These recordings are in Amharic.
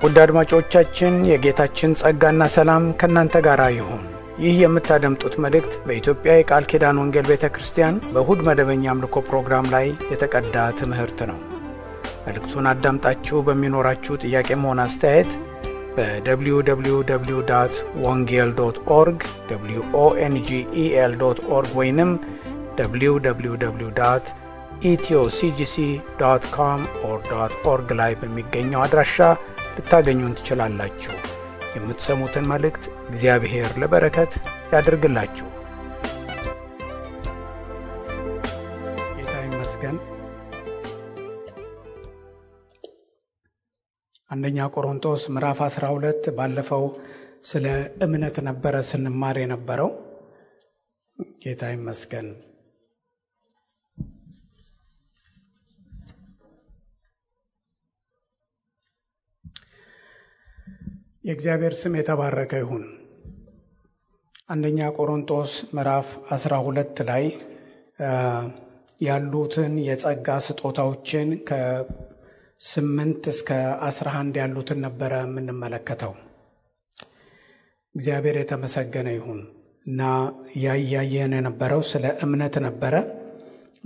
ውድ አድማጮቻችን የጌታችን ጸጋና ሰላም ከእናንተ ጋር ይሁን። ይህ የምታደምጡት መልእክት በኢትዮጵያ የቃል ኪዳን ወንጌል ቤተክርስቲያን በእሁድ መደበኛ አምልኮ ፕሮግራም ላይ የተቀዳ ትምህርት ነው። መልእክቱን አዳምጣችሁ በሚኖራችሁ ጥያቄም ሆነ አስተያየት በwww.wongel.org wongel.org ወይንም www.ethioCGC.com/org ላይ በሚገኘው አድራሻ ልታገኙን ትችላላችሁ። የምትሰሙትን መልእክት እግዚአብሔር ለበረከት ያድርግላችሁ። ጌታ ይመስገን። አንደኛ ቆሮንቶስ ምዕራፍ 12 ባለፈው ስለ እምነት ነበረ ስንማር የነበረው። ጌታ ይመስገን። የእግዚአብሔር ስም የተባረከ ይሁን። አንደኛ ቆሮንቶስ ምዕራፍ 12 ላይ ያሉትን የጸጋ ስጦታዎችን ከ8 እስከ 11 ያሉትን ነበረ የምንመለከተው። እግዚአብሔር የተመሰገነ ይሁን እና ያያየን የነበረው ስለ እምነት ነበረ።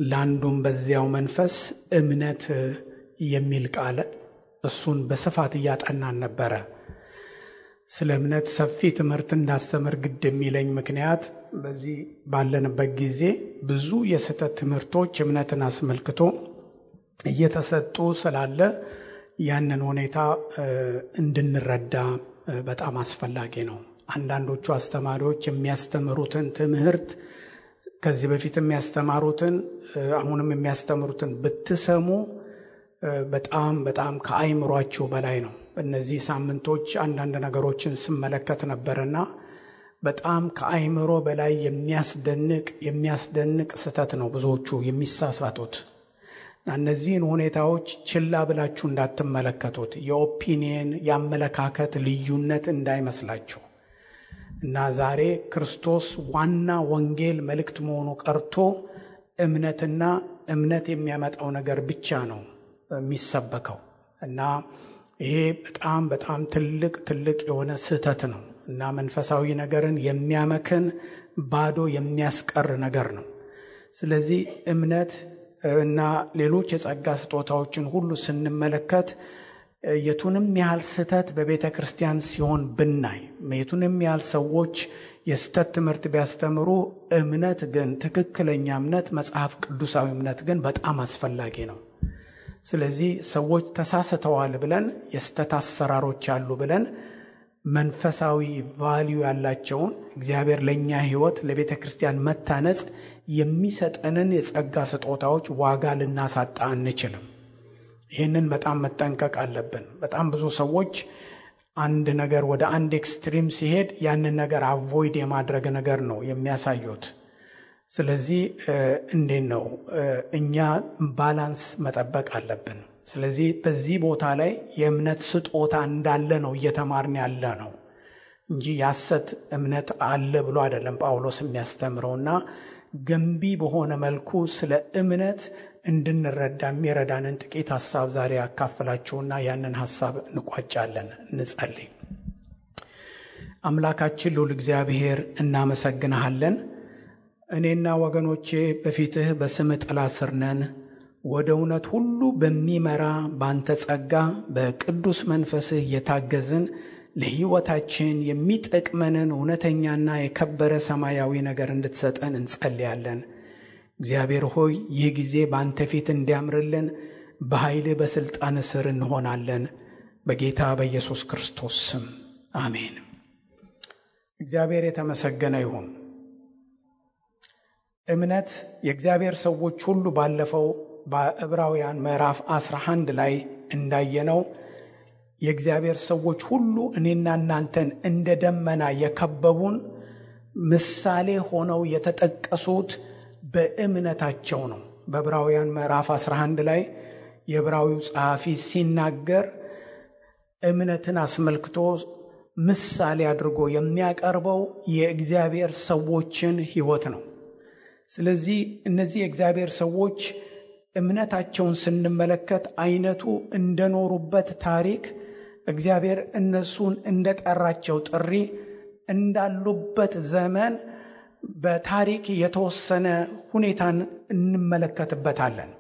ለአንዱም በዚያው መንፈስ እምነት የሚል ቃል እሱን በስፋት እያጠናን ነበረ። ስለ እምነት ሰፊ ትምህርት እንዳስተምር ግድ የሚለኝ ምክንያት በዚህ ባለንበት ጊዜ ብዙ የስህተት ትምህርቶች እምነትን አስመልክቶ እየተሰጡ ስላለ ያንን ሁኔታ እንድንረዳ በጣም አስፈላጊ ነው። አንዳንዶቹ አስተማሪዎች የሚያስተምሩትን ትምህርት ከዚህ በፊት የሚያስተማሩትን አሁንም የሚያስተምሩትን ብትሰሙ በጣም ከአይምሯችሁ በላይ ነው። በእነዚህ ሳምንቶች አንዳንድ ነገሮችን ስመለከት ነበርና በጣም ከአይምሮ በላይ የሚያስደንቅ ስህተት ነው ብዙዎቹ የሚሳሳቱት። እነዚህን ሁኔታዎች ችላ ብላችሁ እንዳትመለከቱት፣ የኦፒኒየን የአመለካከት ልዩነት እንዳይመስላችሁ እና ዛሬ ክርስቶስ ዋና ወንጌል መልእክት መሆኑ ቀርቶ እምነትና እምነት የሚያመጣው ነገር ብቻ ነው የሚሰበከው እና ይሄ በጣም ትልቅ የሆነ ስህተት ነው እና መንፈሳዊ ነገርን የሚያመክን ባዶ የሚያስቀር ነገር ነው። ስለዚህ እምነት እና ሌሎች የጸጋ ስጦታዎችን ሁሉ ስንመለከት የቱንም ያህል ስህተት በቤተ ክርስቲያን ሲሆን ብናይ፣ የቱንም ያህል ሰዎች የስህተት ትምህርት ቢያስተምሩ፣ እምነት ግን ትክክለኛ እምነት መጽሐፍ ቅዱሳዊ እምነት ግን በጣም አስፈላጊ ነው። ስለዚህ ሰዎች ተሳስተዋል ብለን የስተት አሰራሮች አሉ ብለን መንፈሳዊ ቫልዩ ያላቸውን እግዚአብሔር ለኛ ሕይወት ለቤተ ክርስቲያን መታነጽ የሚሰጠንን የጸጋ ስጦታዎች ዋጋ ልናሳጣ አንችልም። ይህንን በጣም መጠንቀቅ አለብን። በጣም ብዙ ሰዎች አንድ ነገር ወደ አንድ ኤክስትሪም ሲሄድ ያንን ነገር አቮይድ የማድረግ ነገር ነው የሚያሳዩት። ስለዚህ እንዴት ነው እኛ ባላንስ መጠበቅ አለብን። ስለዚህ በዚህ ቦታ ላይ የእምነት ስጦታ እንዳለ ነው እየተማርን ያለ ነው እንጂ ያሰት እምነት አለ ብሎ አይደለም ጳውሎስ የሚያስተምረውና ገንቢ በሆነ መልኩ ስለ እምነት እንድንረዳ የሚረዳንን ጥቂት ሐሳብ ዛሬ ያካፍላችሁና ያንን ሐሳብ እንቋጫለን። እንጸልይ። አምላካችን ልዑል እግዚአብሔር እናመሰግንሃለን። እኔና ወገኖቼ በፊትህ በስምህ ጥላ ስር ነን። ወደ እውነት ሁሉ በሚመራ ባንተ ጸጋ በቅዱስ መንፈስህ እየታገዝን ለሕይወታችን የሚጠቅመንን እውነተኛና የከበረ ሰማያዊ ነገር እንድትሰጠን እንጸልያለን። እግዚአብሔር ሆይ ይህ ጊዜ ባንተ ፊት እንዲያምርልን በኃይልህ በሥልጣን ስር እንሆናለን። በጌታ በኢየሱስ ክርስቶስ ስም አሜን። እግዚአብሔር የተመሰገነ ይሁን። እምነት የእግዚአብሔር ሰዎች ሁሉ ባለፈው በዕብራውያን ምዕራፍ 11 ላይ እንዳየነው የእግዚአብሔር ሰዎች ሁሉ እኔና እናንተን እንደ ደመና የከበቡን ምሳሌ ሆነው የተጠቀሱት በእምነታቸው ነው። በዕብራውያን ምዕራፍ 11 ላይ የዕብራዊው ጸሐፊ ሲናገር እምነትን አስመልክቶ ምሳሌ አድርጎ የሚያቀርበው የእግዚአብሔር ሰዎችን ሕይወት ነው። ስለዚህ እነዚህ የእግዚአብሔር ሰዎች እምነታቸውን ስንመለከት አይነቱ እንደኖሩበት ታሪክ እግዚአብሔር እነሱን እንደጠራቸው ጥሪ እንዳሉበት ዘመን በታሪክ የተወሰነ ሁኔታን እንመለከትበታለን።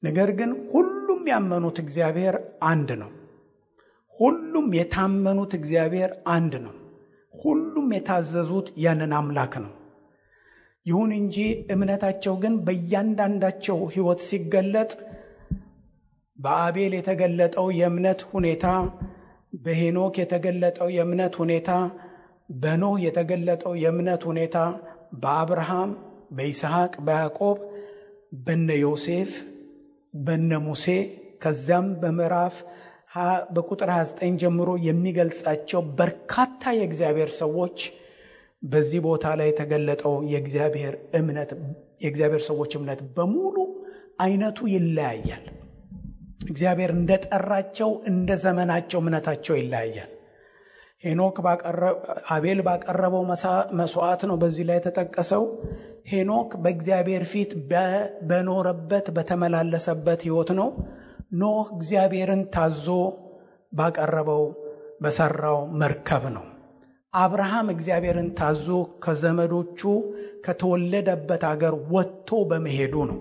ነገር ግን ሁሉም ያመኑት እግዚአብሔር አንድ ነው። ሁሉም የታመኑት እግዚአብሔር አንድ ነው። ሁሉም የታዘዙት ያንን አምላክ ነው። ይሁን እንጂ እምነታቸው ግን በእያንዳንዳቸው ሕይወት ሲገለጥ በአቤል የተገለጠው የእምነት ሁኔታ፣ በሄኖክ የተገለጠው የእምነት ሁኔታ፣ በኖህ የተገለጠው የእምነት ሁኔታ፣ በአብርሃም፣ በይስሐቅ፣ በያዕቆብ፣ በነ ዮሴፍ፣ በነ ሙሴ ከዚያም በቁጥር 29 ጀምሮ የሚገልጻቸው በርካታ የእግዚአብሔር ሰዎች በዚህ ቦታ ላይ የተገለጠው የእግዚአብሔር ሰዎች እምነት በሙሉ አይነቱ ይለያያል። እግዚአብሔር እንደጠራቸው እንደ ዘመናቸው እምነታቸው ይለያያል። ሄኖክ አቤል ባቀረበው መስዋዕት ነው በዚህ ላይ የተጠቀሰው። ሄኖክ በእግዚአብሔር ፊት በኖረበት በተመላለሰበት ሕይወት ነው። ኖህ እግዚአብሔርን ታዞ ባቀረበው በሰራው መርከብ ነው። አብርሃም እግዚአብሔርን ታዞ ከዘመዶቹ ከተወለደበት አገር ወጥቶ በመሄዱ ነው።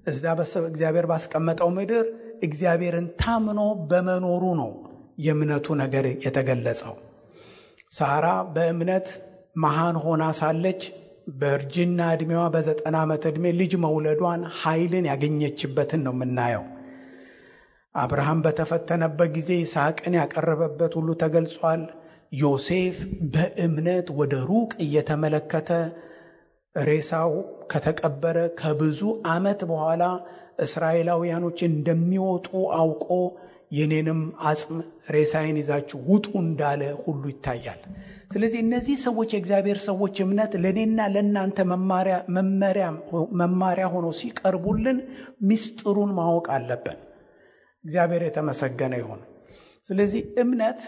እዛ እግዚአብሔር ባስቀመጠው ምድር እግዚአብሔርን ታምኖ በመኖሩ ነው የእምነቱ ነገር የተገለጸው። ሳራ በእምነት መሃን ሆና ሳለች በእርጅና ዕድሜዋ በ90 ዓመት ዕድሜ ልጅ መውለዷን ኃይልን ያገኘችበትን ነው የምናየው። አብርሃም በተፈተነበት ጊዜ ይስሐቅን ያቀረበበት ሁሉ ተገልጿል። ዮሴፍ በእምነት ወደ ሩቅ እየተመለከተ ሬሳው ከተቀበረ ከብዙ ዓመት በኋላ እስራኤላውያኖች እንደሚወጡ አውቆ የኔንም አጽም ሬሳዬን ይዛችሁ ውጡ እንዳለ ሁሉ ይታያል። ስለዚህ እነዚህ ሰዎች የእግዚአብሔር ሰዎች እምነት ለኔና ለናንተ መማሪያ ሆኖ ሲቀርቡልን ምስጢሩን ማወቅ አለብን። እግዚአብሔር የተመሰገነ ይሁን። ስለዚህ እምነት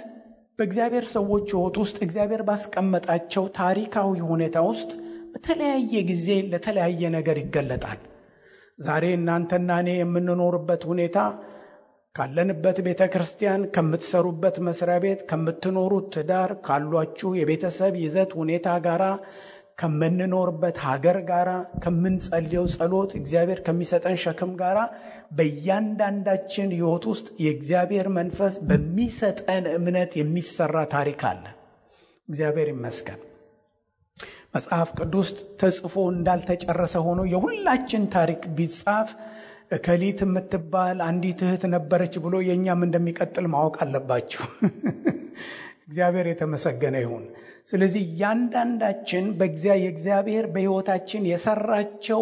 በእግዚአብሔር ሰዎች ሕይወት ውስጥ እግዚአብሔር ባስቀመጣቸው ታሪካዊ ሁኔታ ውስጥ በተለያየ ጊዜ ለተለያየ ነገር ይገለጣል። ዛሬ እናንተና እኔ የምንኖርበት ሁኔታ ካለንበት ቤተ ክርስቲያን፣ ከምትሰሩበት መስሪያ ቤት፣ ከምትኖሩት ትዳር፣ ካሏችሁ የቤተሰብ ይዘት ሁኔታ ጋራ፣ ከምንኖርበት ሀገር ጋራ፣ ከምንጸልየው ጸሎት፣ እግዚአብሔር ከሚሰጠን ሸክም ጋራ በእያንዳንዳችን ሕይወት ውስጥ የእግዚአብሔር መንፈስ በሚሰጠን እምነት የሚሰራ ታሪክ አለ። እግዚአብሔር ይመስገን። መጽሐፍ ቅዱስ ተጽፎ እንዳልተጨረሰ ሆኖ የሁላችን ታሪክ ቢጻፍ እከሊት የምትባል አንዲት እህት ነበረች ብሎ የኛም እንደሚቀጥል ማወቅ አለባችሁ። እግዚአብሔር የተመሰገነ ይሁን። ስለዚህ ያንዳንዳችን የእግዚአብሔር በሕይወታችን የሰራቸው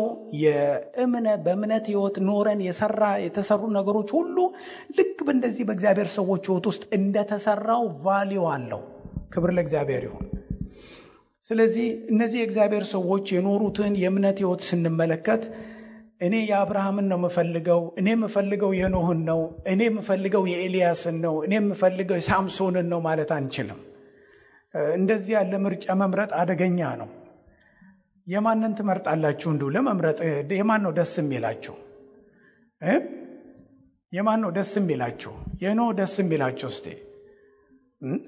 በእምነት ሕይወት ኖረን የተሰሩ ነገሮች ሁሉ ልክ በእንደዚህ በእግዚአብሔር ሰዎች ሕይወት ውስጥ እንደተሰራው ቫልዩ አለው። ክብር ለእግዚአብሔር ይሁን። ስለዚህ እነዚህ የእግዚአብሔር ሰዎች የኖሩትን የእምነት ሕይወት ስንመለከት እኔ የአብርሃምን ነው የምፈልገው፣ እኔ የምፈልገው የኖህን ነው፣ እኔ የምፈልገው የኤልያስን ነው፣ እኔ የምፈልገው የሳምሶንን ነው ማለት አንችልም። እንደዚህ ያለ ምርጫ መምረጥ አደገኛ ነው። የማንን ትመርጣላችሁ? እንዲሁ ለመምረጥ የማን ነው ደስ የሚላችሁ? የማን ነው ደስ የሚላችሁ? የኖህ ደስ የሚላችሁ? እስቲ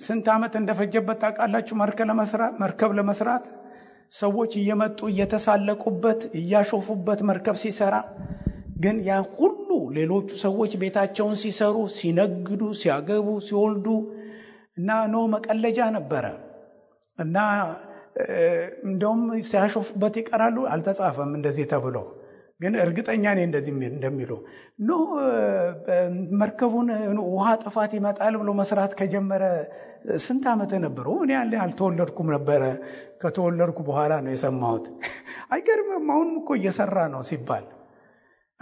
ስንት ዓመት እንደፈጀበት ታውቃላችሁ? መርከብ ለመስራት ሰዎች እየመጡ እየተሳለቁበት እያሾፉበት መርከብ ሲሰራ፣ ግን ያ ሁሉ ሌሎቹ ሰዎች ቤታቸውን ሲሰሩ፣ ሲነግዱ፣ ሲያገቡ፣ ሲወልዱ እና ኖህ መቀለጃ ነበረ እና እንደውም ሲያሾፉበት ይቀራሉ። አልተጻፈም እንደዚህ ተብሎ፣ ግን እርግጠኛ ነኝ እንደዚህ እንደሚሉ ኖህ መርከቡን ውሃ ጥፋት ይመጣል ብሎ መስራት ከጀመረ ስንት ዓመት ነበረው? እኔ አልተወለድኩም ነበረ። ከተወለድኩ በኋላ ነው የሰማሁት። አይገርምም? አሁንም እኮ እየሰራ ነው ሲባል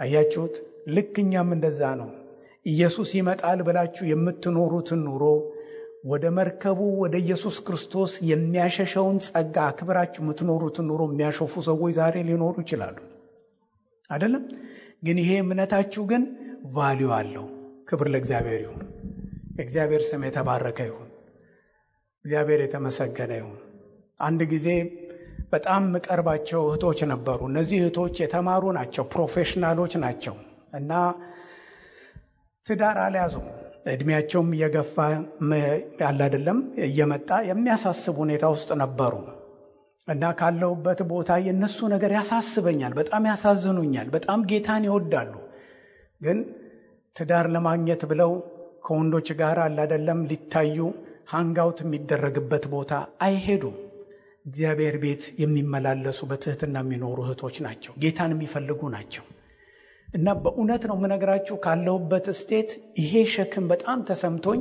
አያችሁት? ልክ እኛም እንደዛ ነው። ኢየሱስ ይመጣል ብላችሁ የምትኖሩትን ኑሮ ወደ መርከቡ ወደ ኢየሱስ ክርስቶስ የሚያሸሸውን ጸጋ አክብራችሁ የምትኖሩትን ኑሮ የሚያሾፉ ሰዎች ዛሬ ሊኖሩ ይችላሉ አይደለም? ግን ይሄ እምነታችሁ ግን ቫልዩ አለው። ክብር ለእግዚአብሔር ይሁን። እግዚአብሔር ስም የተባረከ ይሁን። እግዚአብሔር የተመሰገነ ይሁን። አንድ ጊዜ በጣም ምቀርባቸው እህቶች ነበሩ። እነዚህ እህቶች የተማሩ ናቸው፣ ፕሮፌሽናሎች ናቸው እና ትዳር አልያዙም እድሜያቸውም እየገፋ ያለ አይደለም እየመጣ የሚያሳስብ ሁኔታ ውስጥ ነበሩ እና ካለውበት ቦታ የነሱ ነገር ያሳስበኛል፣ በጣም ያሳዝኑኛል። በጣም ጌታን ይወዳሉ፣ ግን ትዳር ለማግኘት ብለው ከወንዶች ጋር አለ አይደለም ሊታዩ ሃንጋውት የሚደረግበት ቦታ አይሄዱም። እግዚአብሔር ቤት የሚመላለሱ በትህትና የሚኖሩ እህቶች ናቸው፣ ጌታን የሚፈልጉ ናቸው። እና በእውነት ነው የምነግራችሁ ካለውበት ስቴት ይሄ ሸክም በጣም ተሰምቶኝ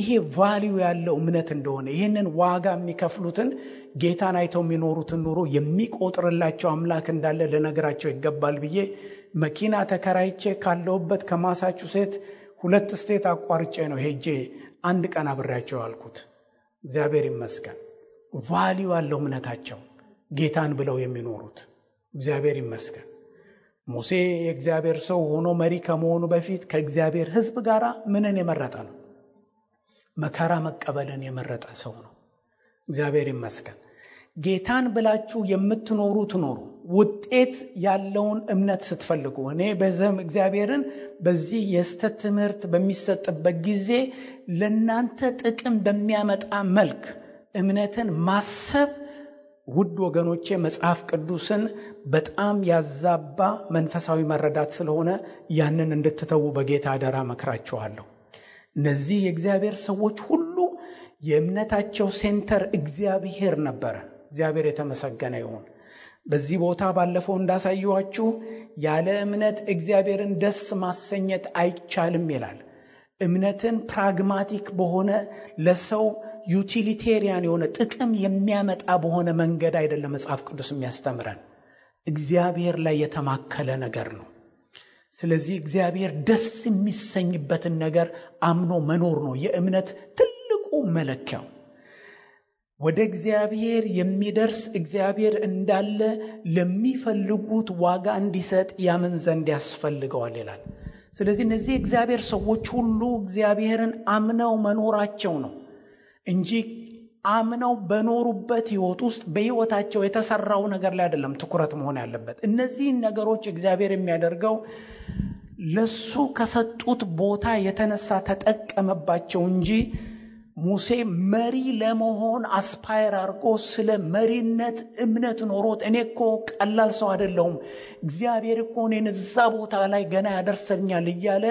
ይሄ ቫልዩ ያለው እምነት እንደሆነ ይህንን ዋጋ የሚከፍሉትን ጌታን አይተው የሚኖሩትን ኑሮ የሚቆጥርላቸው አምላክ እንዳለ ልነግራቸው ይገባል ብዬ መኪና ተከራይቼ ካለውበት ከማሳቹሴት 2 ስቴት አቋርጬ ነው ሄጄ አንድ ቀን አብሬያቸው አልኩት። እግዚአብሔር ይመስገን ቫልዩ ያለው እምነታቸው ጌታን ብለው የሚኖሩት እግዚአብሔር ይመስገን። ሙሴ የእግዚአብሔር ሰው ሆኖ መሪ ከመሆኑ በፊት ከእግዚአብሔር ሕዝብ ጋር ምንን የመረጠ ነው? መከራ መቀበልን የመረጠ ሰው ነው። እግዚአብሔር ይመስገን። ጌታን ብላችሁ የምትኖሩት ኖሩ ውጤት ያለውን እምነት ስትፈልጉ። እኔ በዘም እግዚአብሔርን በዚህ የስተት ትምህርት በሚሰጥበት ጊዜ ለናንተ ጥቅም በሚያመጣ መልክ እምነትን ማሰብ ውድ ወገኖቼ መጽሐፍ ቅዱስን በጣም ያዛባ መንፈሳዊ መረዳት ስለሆነ ያንን እንድትተዉ በጌታ አደራ መክራችኋለሁ። እነዚህ የእግዚአብሔር ሰዎች ሁሉ የእምነታቸው ሴንተር እግዚአብሔር ነበረ። እግዚአብሔር የተመሰገነ ይሁን። በዚህ ቦታ ባለፈው እንዳሳየኋችሁ ያለ እምነት እግዚአብሔርን ደስ ማሰኘት አይቻልም ይላል። እምነትን ፕራግማቲክ በሆነ ለሰው ዩቲሊቴሪያን የሆነ ጥቅም የሚያመጣ በሆነ መንገድ አይደለም መጽሐፍ ቅዱስ የሚያስተምረን፣ እግዚአብሔር ላይ የተማከለ ነገር ነው። ስለዚህ እግዚአብሔር ደስ የሚሰኝበትን ነገር አምኖ መኖር ነው የእምነት ትልቁ መለኪያው። ወደ እግዚአብሔር የሚደርስ እግዚአብሔር እንዳለ ለሚፈልጉት ዋጋ እንዲሰጥ ያምን ዘንድ ያስፈልገዋል ይላል። ስለዚህ እነዚህ እግዚአብሔር ሰዎች ሁሉ እግዚአብሔርን አምነው መኖራቸው ነው እንጂ አምነው በኖሩበት ህይወት ውስጥ በህይወታቸው የተሰራው ነገር ላይ አይደለም ትኩረት መሆን ያለበት። እነዚህ ነገሮች እግዚአብሔር የሚያደርገው ለሱ ከሰጡት ቦታ የተነሳ ተጠቀመባቸው እንጂ ሙሴ መሪ ለመሆን አስፓየር አድርጎ ስለ መሪነት እምነት ኖሮት እኔ እኮ ቀላል ሰው አይደለሁም እግዚአብሔር እኮ እኔን እዛ ቦታ ላይ ገና ያደርሰኛል እያለ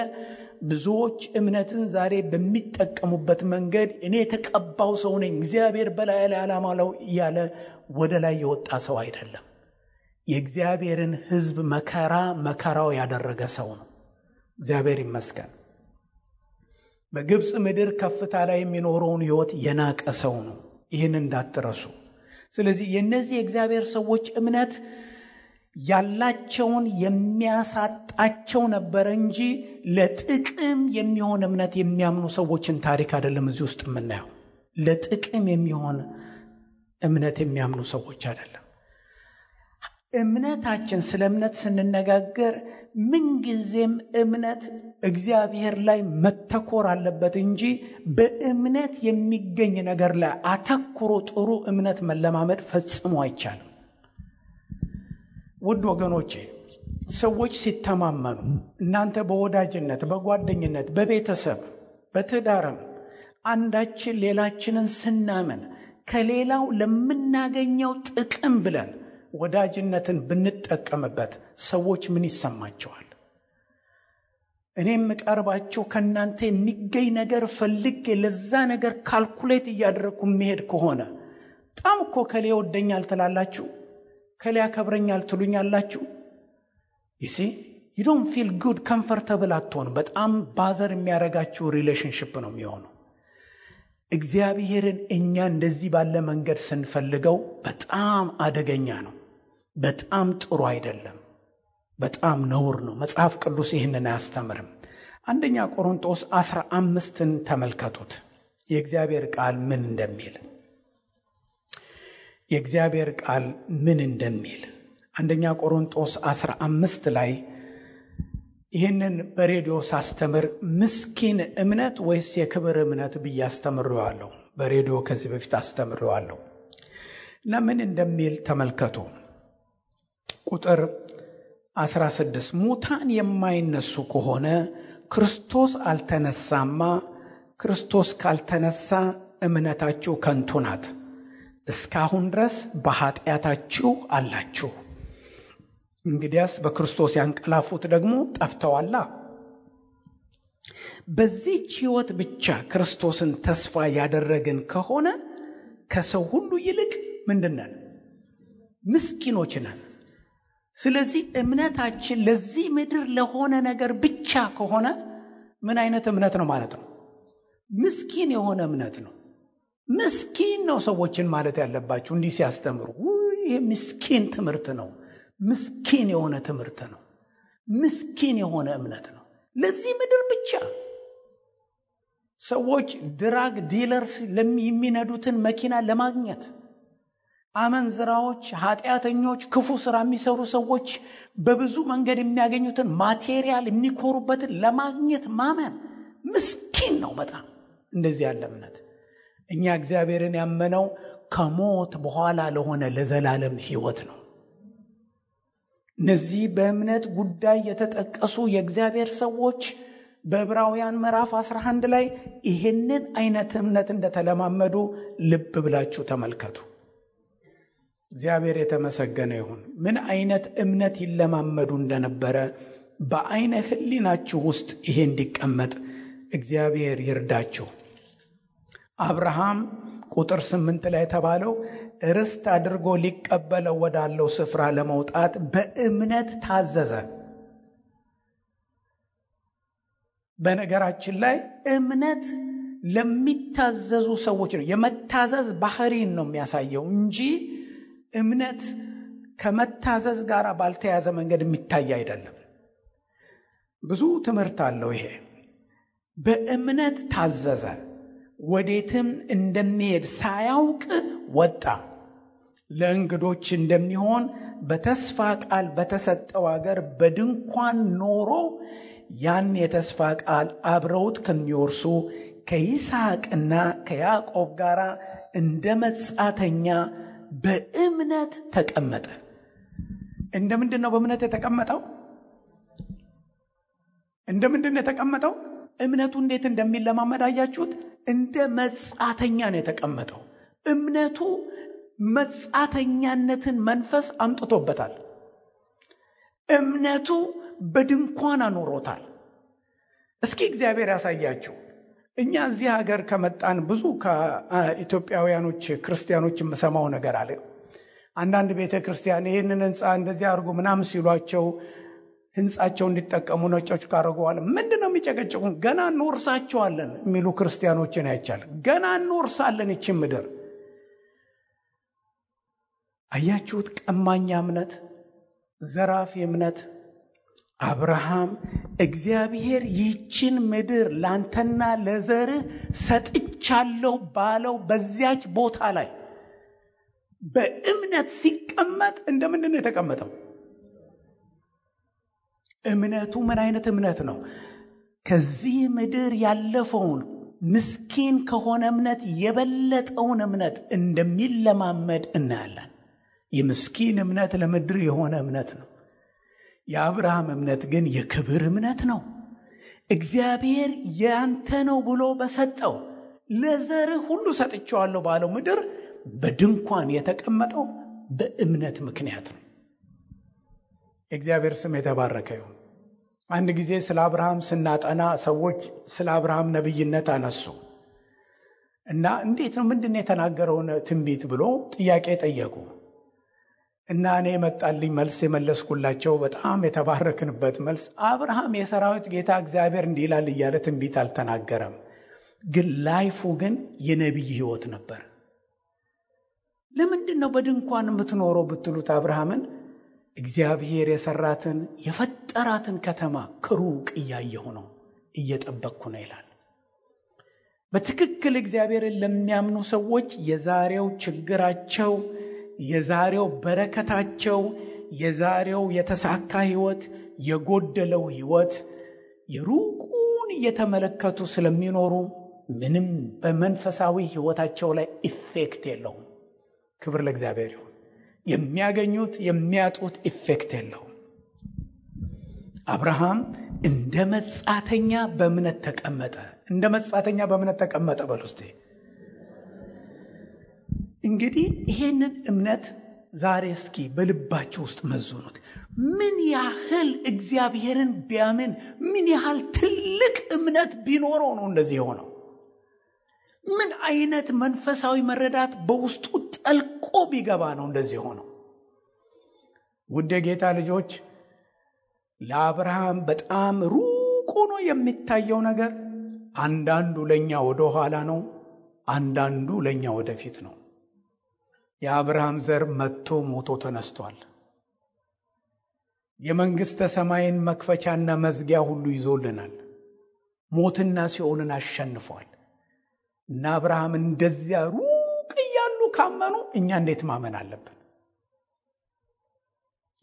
ብዙዎች እምነትን ዛሬ በሚጠቀሙበት መንገድ እኔ ተቀባው ሰው ነኝ እግዚአብሔር በላይ ላይ አላማለው እያለ ወደ ላይ የወጣ ሰው አይደለም። የእግዚአብሔርን ሕዝብ መከራው ያደረገ ሰው ነው። እግዚአብሔር ይመስገን። በግብጽ ምድር ከፍታ ላይ የሚኖረውን ህይወት የናቀ ሰው ነው። ይህን እንዳትረሱ። ስለዚህ የነዚህ የእግዚአብሔር ሰዎች እምነት ያላቸውን የሚያሳጣቸው ነበር እንጂ ለጥቅም የሚሆን እምነት የሚያምኑ ሰዎችን ታሪክ አይደለም እዚህ ውስጥ የምናየው። ለጥቅም የሚሆን እምነት የሚያምኑ ሰዎች አይደለም። እምነታችን ስለ እምነት ስንነጋገር ምንጊዜም እምነት እግዚአብሔር ላይ መተኮር አለበት እንጂ በእምነት የሚገኝ ነገር ላይ አተኩሮ ጥሩ እምነት መለማመድ ፈጽሞ አይቻልም። ውድ ወገኖቼ ሰዎች ሲተማመኑ እናንተ በወዳጅነት በጓደኝነት በቤተሰብ በትዳርም አንዳችን ሌላችንን ስናምን ከሌላው ለምናገኘው ጥቅም ብለን ወዳጅነትን ብንጠቀምበት ሰዎች ምን ይሰማቸዋል? እኔም ቀርባቸው ከናንተ የሚገኝ ነገር ፈልጌ ለዛ ነገር ካልኩሌት እያደረኩ መሄድ ከሆነ በጣም እኮ ከሌ ወደኛል ትላላችሁ፣ ከሌ ያከብረኛል ትሉኛላችሁ። you don't feel good comfortable አትሆኑ። በጣም ባዘር የሚያረጋችሁ ሪሌሽንሺፕ ነው የሚሆነው። እግዚአብሔርን እኛ እንደዚህ ባለ መንገድ ስንፈልገው በጣም አደገኛ ነው። በጣም ጥሩ አይደለም። በጣም ነውር ነው። መጽሐፍ ቅዱስ ይህንን አያስተምርም። አንደኛ ቆሮንቶስ 15ን ተመልከቱት። የእግዚአብሔር ቃል ምን እንደሚል የእግዚአብሔር ቃል ምን እንደሚል አንደኛ ቆሮንቶስ 15 ላይ ይህንን በሬዲዮ ሳስተምር ምስኪን እምነት ወይስ የክብር እምነት ብዬ አስተምሬዋለሁ። በሬዲዮ ከዚህ በፊት አስተምሬዋለሁ እና ምን እንደሚል ተመልከቱ። ቁጥር 16 ሙታን የማይነሱ ከሆነ ክርስቶስ አልተነሳማ ክርስቶስ ካልተነሳ እምነታችሁ ከንቱ ናት። እስካሁን ድረስ በኃጢአታችሁ አላችሁ። እንግዲያስ በክርስቶስ ያንቀላፉት ደግሞ ጠፍተዋላ። በዚህች ሕይወት ብቻ ክርስቶስን ተስፋ ያደረግን ከሆነ ከሰው ሁሉ ይልቅ ምንድነን? ምስኪኖች ነን። ስለዚህ እምነታችን ለዚህ ምድር ለሆነ ነገር ብቻ ከሆነ ምን አይነት እምነት ነው ማለት ነው? ምስኪን የሆነ እምነት ነው። ምስኪን ነው ሰዎችን ማለት ያለባችሁ እንዲህ ሲያስተምሩ። ይሄ ምስኪን ትምህርት ነው። ምስኪን የሆነ ትምህርት ነው። ምስኪን የሆነ እምነት ነው። ለዚህ ምድር ብቻ ሰዎች ድራግ ዲለርስ የሚነዱትን መኪና ለማግኘት፣ አመንዝራዎች፣ ኃጢአተኞች፣ ክፉ ስራ የሚሰሩ ሰዎች በብዙ መንገድ የሚያገኙትን ማቴሪያል የሚኮሩበትን ለማግኘት ማመን ምስኪን ነው በጣም እንደዚህ ያለ እምነት። እኛ እግዚአብሔርን ያመነው ከሞት በኋላ ለሆነ ለዘላለም ሕይወት ነው። እነዚህ በእምነት ጉዳይ የተጠቀሱ የእግዚአብሔር ሰዎች በዕብራውያን ምዕራፍ 11 ላይ ይህንን አይነት እምነት እንደተለማመዱ ልብ ብላችሁ ተመልከቱ። እግዚአብሔር የተመሰገነ ይሁን። ምን አይነት እምነት ይለማመዱ እንደነበረ በአይነ ሕሊናችሁ ውስጥ ይሄ እንዲቀመጥ እግዚአብሔር ይርዳችሁ። አብርሃም ቁጥር 8 ላይ የተባለው ርስት አድርጎ ሊቀበለው ወዳለው ስፍራ ለመውጣት በእምነት ታዘዘ። በነገራችን ላይ እምነት ለሚታዘዙ ሰዎች ነው። የመታዘዝ ባህሪን ነው የሚያሳየው እንጂ እምነት ከመታዘዝ ጋር ባልተያዘ መንገድ የሚታይ አይደለም። ብዙ ትምህርት አለው ይሄ። በእምነት ታዘዘ፣ ወዴትም እንደሚሄድ ሳያውቅ ወጣ። ለእንግዶች እንደሚሆን በተስፋ ቃል በተሰጠው አገር በድንኳን ኖሮ ያን የተስፋ ቃል አብረውት ከሚወርሱ ከይስሐቅና ከያዕቆብ ጋር እንደ መጻተኛ በእምነት ተቀመጠ። እንደምንድን ነው በእምነት የተቀመጠው? እንደምንድን ነው የተቀመጠው? እምነቱ እንዴት እንደሚለማመድ አያችሁት? እንደ መጻተኛ ነው የተቀመጠው። እምነቱ መጻተኛነትን መንፈስ አምጥቶበታል። እምነቱ በድንኳን አኖሮታል። እስኪ እግዚአብሔር ያሳያችሁ። እኛ እዚህ ሀገር ከመጣን ብዙ ከኢትዮጵያውያኖች ክርስቲያኖች የምሰማው ነገር አለ። አንዳንድ ቤተ ክርስቲያን ይህንን ህንፃ እንደዚህ አድርጉ ምናምን ሲሏቸው ህንፃቸው እንዲጠቀሙ ነጮች ካረጉዋል ምንድነው የሚጨቀጭቁን? ገና እንወርሳቸዋለን የሚሉ ክርስቲያኖችን አይቻል። ገና እንወርሳለን ይችን ምድር። አያችሁት? ቀማኛ እምነት፣ ዘራፊ እምነት። አብርሃም እግዚአብሔር ይህችን ምድር ላንተና ለዘርህ ሰጥቻለሁ ባለው በዚያች ቦታ ላይ በእምነት ሲቀመጥ እንደምንድን ነው የተቀመጠው? እምነቱ ምን አይነት እምነት ነው? ከዚህ ምድር ያለፈውን ምስኪን ከሆነ እምነት የበለጠውን እምነት እንደሚለማመድ እናያለን። የምስኪን እምነት ለምድር የሆነ እምነት ነው። የአብርሃም እምነት ግን የክብር እምነት ነው። እግዚአብሔር ያንተ ነው ብሎ በሰጠው ለዘርህ ሁሉ ሰጥቼዋለሁ ባለው ምድር በድንኳን የተቀመጠው በእምነት ምክንያት ነው። እግዚአብሔር ስም የተባረከ ይሁን። አንድ ጊዜ ስለ አብርሃም ስናጠና ሰዎች ስለ አብርሃም ነብይነት አነሱ እና እንዴት ነው ምንድነው የተናገረውን ትንቢት ብሎ ጥያቄ ጠየቁ። እና እኔ መጣልኝ መልስ የመለስኩላቸው በጣም የተባረክንበት መልስ፣ አብርሃም የሰራዊት ጌታ እግዚአብሔር እንዲህ ይላል እያለ ትንቢት አልተናገረም፣ ግን ላይፉ ግን የነቢይ ሕይወት ነበር። ለምንድን ነው በድንኳን የምትኖረው ብትሉት አብርሃምን እግዚአብሔር የሰራትን የፈጠራትን ከተማ ከሩቅ እያየሁ ነው፣ እየጠበቅኩ ነው ይላል። በትክክል እግዚአብሔርን ለሚያምኑ ሰዎች የዛሬው ችግራቸው፣ የዛሬው በረከታቸው፣ የዛሬው የተሳካ ሕይወት፣ የጎደለው ሕይወት የሩቁን እየተመለከቱ ስለሚኖሩ ምንም በመንፈሳዊ ሕይወታቸው ላይ ኢፌክት የለውም። ክብር ለእግዚአብሔር ይሁን። የሚያገኙት የሚያጡት ኢፌክት የለውም። አብርሃም እንደ መጻተኛ በእምነት ተቀመጠ። እንደ መጻተኛ በእምነት ተቀመጠ በል ውስጥ። እንግዲህ ይሄንን እምነት ዛሬ እስኪ በልባችሁ ውስጥ መዝኑት። ምን ያህል እግዚአብሔርን ቢያምን ምን ያህል ትልቅ እምነት ቢኖረው ነው እንደዚህ የሆነው? ምን አይነት መንፈሳዊ መረዳት በውስጡ ጠልቆ ቢገባ ነው እንደዚህ የሆነው? ውድ የጌታ ልጆች፣ ለአብርሃም በጣም ሩቅ ሆኖ የሚታየው ነገር አንዳንዱ ለኛ ወደ ኋላ ነው፣ አንዳንዱ ለኛ ወደፊት ነው። የአብርሃም ዘር መጥቶ ሞቶ ተነስቷል። የመንግስተ ሰማይን መክፈቻና መዝጊያ ሁሉ ይዞልናል። ሞትና ሲኦልን አሸንፏል። እና አብርሃም እንደዚያ ሩቅ እያሉ ካመኑ እኛ እንዴት ማመን አለብን?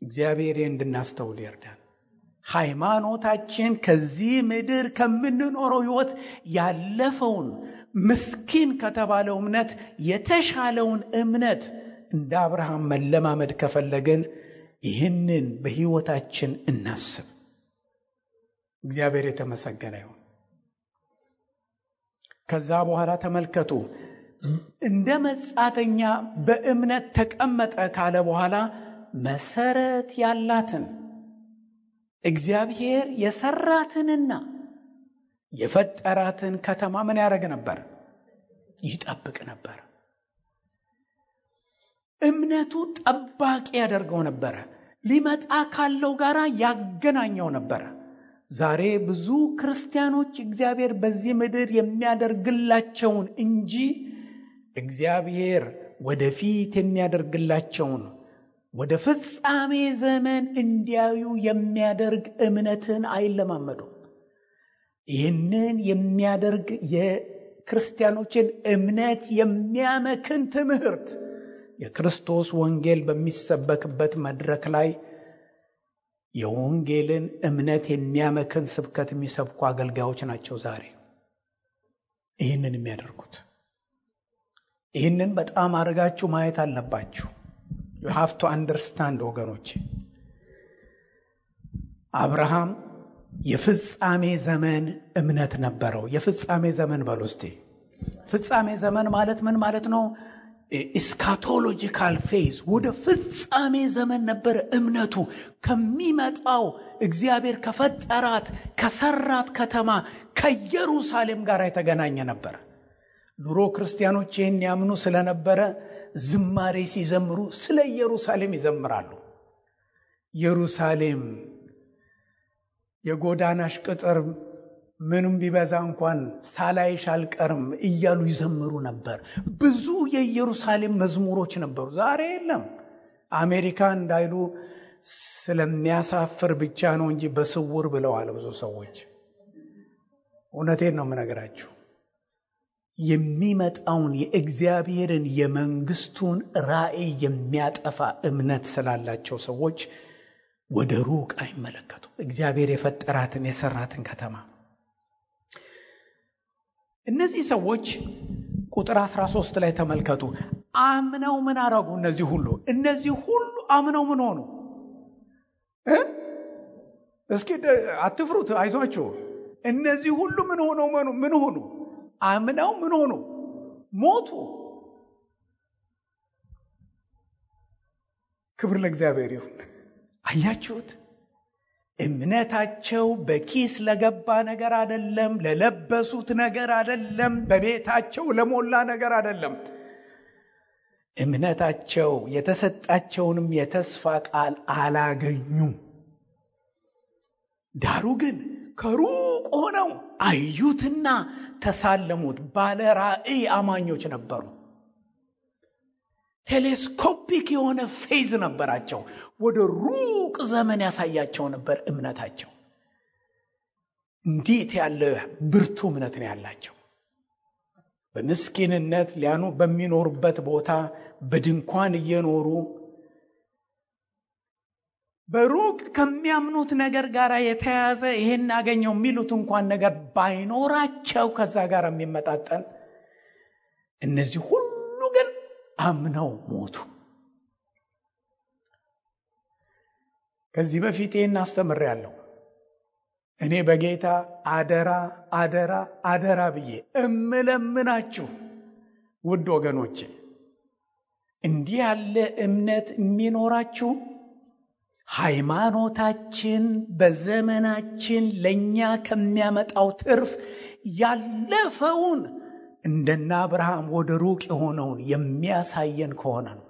እግዚአብሔር እንድናስተውል ይርዳን። ሃይማኖታችን ከዚህ ምድር ከምንኖረው ሕይወት ያለፈውን ምስኪን ከተባለው እምነት የተሻለውን እምነት እንደ አብርሃም መለማመድ ከፈለግን ይህንን በሕይወታችን እናስብ። እግዚአብሔር የተመሰገነ ይሁን። ከዛ በኋላ ተመልከቱ፣ እንደ መጻተኛ በእምነት ተቀመጠ ካለ በኋላ መሰረት ያላትን እግዚአብሔር የሰራትንና የፈጠራትን ከተማ ምን ያደርግ ነበር? ይጠብቅ ነበር። እምነቱ ጠባቂ ያደርገው ነበረ። ሊመጣ ካለው ጋራ ያገናኘው ነበረ። ዛሬ ብዙ ክርስቲያኖች እግዚአብሔር በዚህ ምድር የሚያደርግላቸውን እንጂ እግዚአብሔር ወደፊት የሚያደርግላቸውን ወደ ፍጻሜ ዘመን እንዲያዩ የሚያደርግ እምነትን አይለማመዱም። ይህንን የሚያደርግ የክርስቲያኖችን እምነት የሚያመክን ትምህርት የክርስቶስ ወንጌል በሚሰበክበት መድረክ ላይ የወንጌልን እምነት የሚያመክን ስብከት የሚሰብኩ አገልጋዮች ናቸው ዛሬ ይህንን የሚያደርጉት። ይህንን በጣም አድርጋችሁ ማየት አለባችሁ። you have to understand ወገኖች። አብርሃም የፍጻሜ ዘመን እምነት ነበረው። የፍጻሜ ዘመን በሉ እስቲ። ፍጻሜ ዘመን ማለት ምን ማለት ነው? ኢስካቶሎጂካል ፌዝ፣ ወደ ፍጻሜ ዘመን ነበረ እምነቱ። ከሚመጣው እግዚአብሔር ከፈጠራት ከሰራት ከተማ ከኢየሩሳሌም ጋር የተገናኘ ነበር። ድሮ ክርስቲያኖች ይህን ያምኑ ስለነበረ ዝማሬ ሲዘምሩ ስለ ኢየሩሳሌም ይዘምራሉ። ኢየሩሳሌም የጎዳናሽ ቅጥር ምንም ቢበዛ እንኳን ሳላይሽ አልቀርም እያሉ ይዘምሩ ነበር። ብዙ የኢየሩሳሌም መዝሙሮች ነበሩ። ዛሬ የለም። አሜሪካ እንዳይሉ ስለሚያሳፍር ብቻ ነው እንጂ በስውር ብለዋል ብዙ ሰዎች። እውነቴን ነው የምነግራችሁ። የሚመጣውን የእግዚአብሔርን የመንግስቱን ራእይ የሚያጠፋ እምነት ስላላቸው ሰዎች ወደ ሩቅ አይመለከቱም። እግዚአብሔር የፈጠራትን የሰራትን ከተማ እነዚህ ሰዎች ቁጥር 13 ላይ ተመልከቱ። አምነው ምን አረጉ? እነዚህ ሁሉ አምነው ምን ሆኑ? እስኪ አትፍሩት፣ አይዟችሁ። እነዚህ ሁሉ ምን ሆኑ? አምነው ምን ሆኑ? ሞቱ። ክብር ለእግዚአብሔር ይሁን። አያችሁት? እምነታቸው በኪስ ለገባ ነገር አይደለም፣ ለለበሱት ነገር አይደለም፣ በቤታቸው ለሞላ ነገር አይደለም። እምነታቸው የተሰጣቸውንም የተስፋ ቃል አላገኙም። ዳሩ ግን ከሩቅ ሆነው አዩትና ተሳለሙት። ባለ ራእይ አማኞች ነበሩ። ቴሌስኮፒክ የሆነ ፌዝ ነበራቸው። ወደ ሩቅ ዘመን ያሳያቸው ነበር እምነታቸው። እንዴት ያለ ብርቱ እምነት ነው ያላቸው! በምስኪንነት በሚኖሩበት ቦታ በድንኳን እየኖሩ በሩቅ ከሚያምኑት ነገር ጋር የተያዘ ይሄን አገኘው የሚሉት እንኳን ነገር ባይኖራቸው ከዛ ጋር የሚመጣጠን እነዚህ ሁሉ ግን አምነው ሞቱ። ከዚህ በፊት ይሄን አስተምሬያለሁ። እኔ በጌታ አደራ አደራ አደራ ብዬ እምለምናችሁ ውድ ወገኖቼ እንዲህ ያለ እምነት የሚኖራችሁ ሃይማኖታችን በዘመናችን ለኛ ከሚያመጣው ትርፍ ያለፈውን እንደና አብርሃም ወደ ሩቅ የሆነውን የሚያሳየን ከሆነ ነው።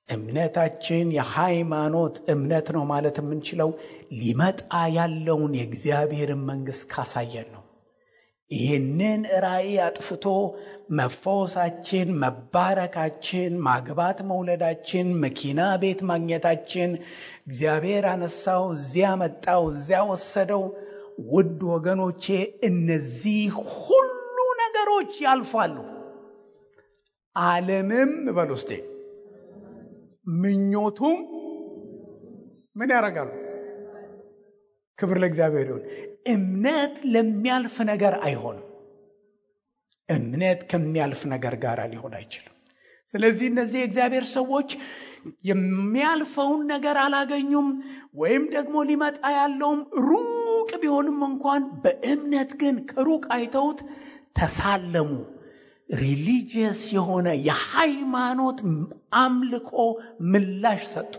እምነታችን የሃይማኖት እምነት ነው ማለት የምንችለው ሊመጣ ያለውን የእግዚአብሔርን መንግሥት ካሳየን ነው። ይህንን ራእይ አጥፍቶ መፈወሳችን፣ መባረካችን፣ ማግባት መውለዳችን፣ መኪና ቤት ማግኘታችን፣ እግዚአብሔር አነሳው፣ እዚያ መጣው፣ እዚያ ወሰደው፣ ውድ ወገኖቼ እነዚህ ሁሉ ነገሮች ያልፋሉ። ዓለምም በሉስቴ ምኞቱም ምን ያደርጋሉ? ክብር ለእግዚአብሔር ይሁን። እምነት ለሚያልፍ ነገር አይሆንም። እምነት ከሚያልፍ ነገር ጋር ሊሆን አይችልም። ስለዚህ እነዚህ የእግዚአብሔር ሰዎች የሚያልፈውን ነገር አላገኙም፣ ወይም ደግሞ ሊመጣ ያለውም ሩቅ ቢሆንም እንኳን በእምነት ግን ከሩቅ አይተውት ተሳለሙ። ሪሊጂየስ የሆነ የሃይማኖት አምልኮ ምላሽ ሰጡ።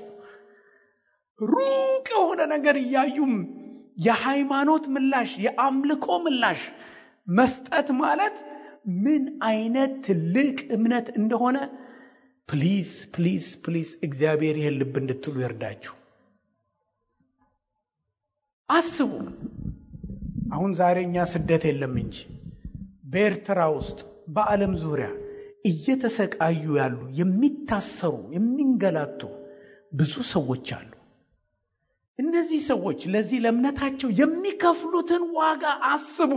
ሩቅ የሆነ ነገር እያዩም የሃይማኖት ምላሽ፣ የአምልኮ ምላሽ መስጠት ማለት ምን አይነት ትልቅ እምነት እንደሆነ ፕሊዝ ፕሊዝ ፕሊዝ እግዚአብሔር ይህን ልብ እንድትሉ ይርዳችሁ። አስቡ። አሁን ዛሬ እኛ ስደት የለም እንጂ በኤርትራ ውስጥ በዓለም ዙሪያ እየተሰቃዩ ያሉ የሚታሰሩ የሚንገላቱ ብዙ ሰዎች አሉ። እነዚህ ሰዎች ለዚህ ለእምነታቸው የሚከፍሉትን ዋጋ አስቡ።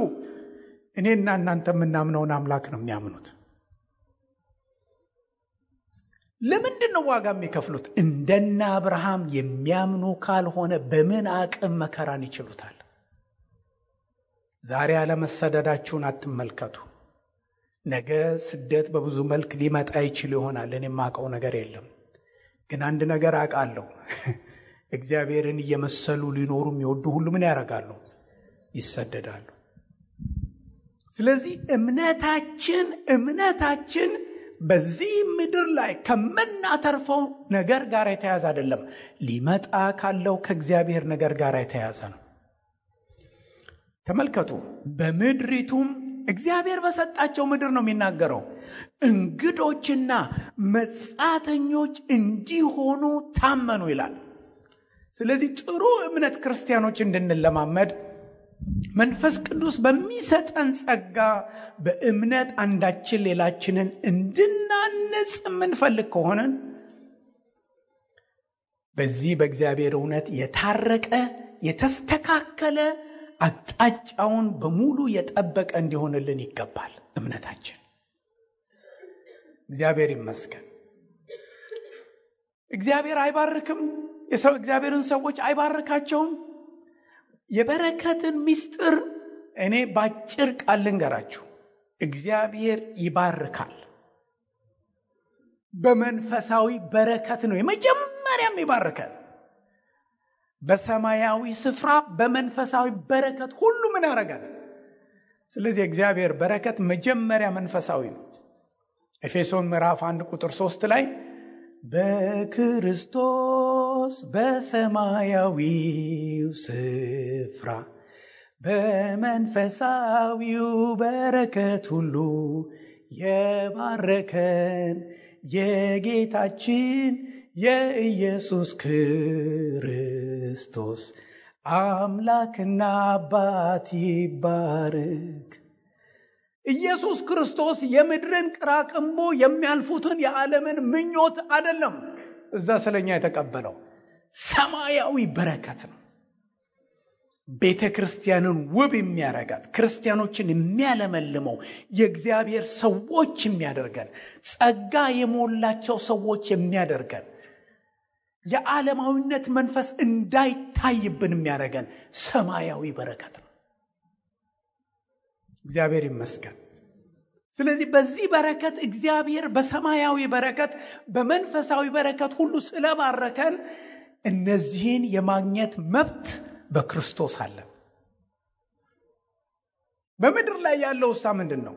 እኔና እናንተ የምናምነውን አምላክ ነው የሚያምኑት። ለምንድን ነው ዋጋ የሚከፍሉት? እንደና አብርሃም የሚያምኑ ካልሆነ በምን አቅም መከራን ይችሉታል? ዛሬ አለመሰደዳችሁን አትመልከቱ። ነገ ስደት በብዙ መልክ ሊመጣ ይችል ይሆናል። እኔ የማውቀው ነገር የለም። ግን አንድ ነገር አውቃለሁ። እግዚአብሔርን እየመሰሉ ሊኖሩ የሚወዱ ሁሉ ምን ያደርጋሉ? ይሰደዳሉ። ስለዚህ እምነታችን በዚህ ምድር ላይ ከምናተርፈው ነገር ጋር የተያዘ አይደለም። ሊመጣ ካለው ከእግዚአብሔር ነገር ጋር የተያዘ ነው። ተመልከቱ። በምድሪቱም እግዚአብሔር በሰጣቸው ምድር ነው የሚናገረው፣ እንግዶችና መጻተኞች እንዲሆኑ ታመኑ ይላል። ስለዚህ ጥሩ እምነት ክርስቲያኖች እንድንለማመድ መንፈስ ቅዱስ በሚሰጠን ጸጋ በእምነት አንዳችን ሌላችንን እንድናንጽ የምንፈልግ ከሆነን በዚህ በእግዚአብሔር እውነት የታረቀ የተስተካከለ አቅጣጫውን በሙሉ የጠበቀ እንዲሆንልን ይገባል እምነታችን። እግዚአብሔር ይመስገን። እግዚአብሔር አይባርክም? እግዚአብሔርን ሰዎች አይባርካቸውም? የበረከትን ምስጢር እኔ ባጭር ቃል ልንገራችሁ። እግዚአብሔር ይባርካል። በመንፈሳዊ በረከት ነው የመጀመሪያም ይባርካል። በሰማያዊ ስፍራ በመንፈሳዊ በረከት ሁሉ ምን ያደርጋል? ስለዚህ እግዚአብሔር በረከት መጀመሪያ መንፈሳዊ ነው። ኤፌሶን ምዕራፍ 1 ቁጥር 3 ላይ በክርስቶስ በሰማያዊው ስፍራ በመንፈሳዊው በረከት ሁሉ የባረከን የጌታችን የኢየሱስ ክርስቶስ አምላክና አባት ይባረክ። ኢየሱስ ክርስቶስ የምድርን ቅራቅንቦ የሚያልፉትን የዓለምን ምኞት አይደለም እዛ ስለኛ የተቀበለው፣ ሰማያዊ በረከት ነው። ቤተ ክርስቲያንን ውብ የሚያረጋት፣ ክርስቲያኖችን የሚያለመልመው፣ የእግዚአብሔር ሰዎች የሚያደርገን፣ ጸጋ የሞላቸው ሰዎች የሚያደርገን፣ የዓለማዊነት መንፈስ እንዳይታይብን የሚያደርገን ሰማያዊ በረከት ነው። እግዚአብሔር ይመስገን። ስለዚህ በዚህ በረከት እግዚአብሔር በሰማያዊ በረከት በመንፈሳዊ በረከት ሁሉ ስለባረከን እነዚህን የማግኘት መብት በክርስቶስ አለ። በምድር ላይ ያለው ሳ ምንድነው?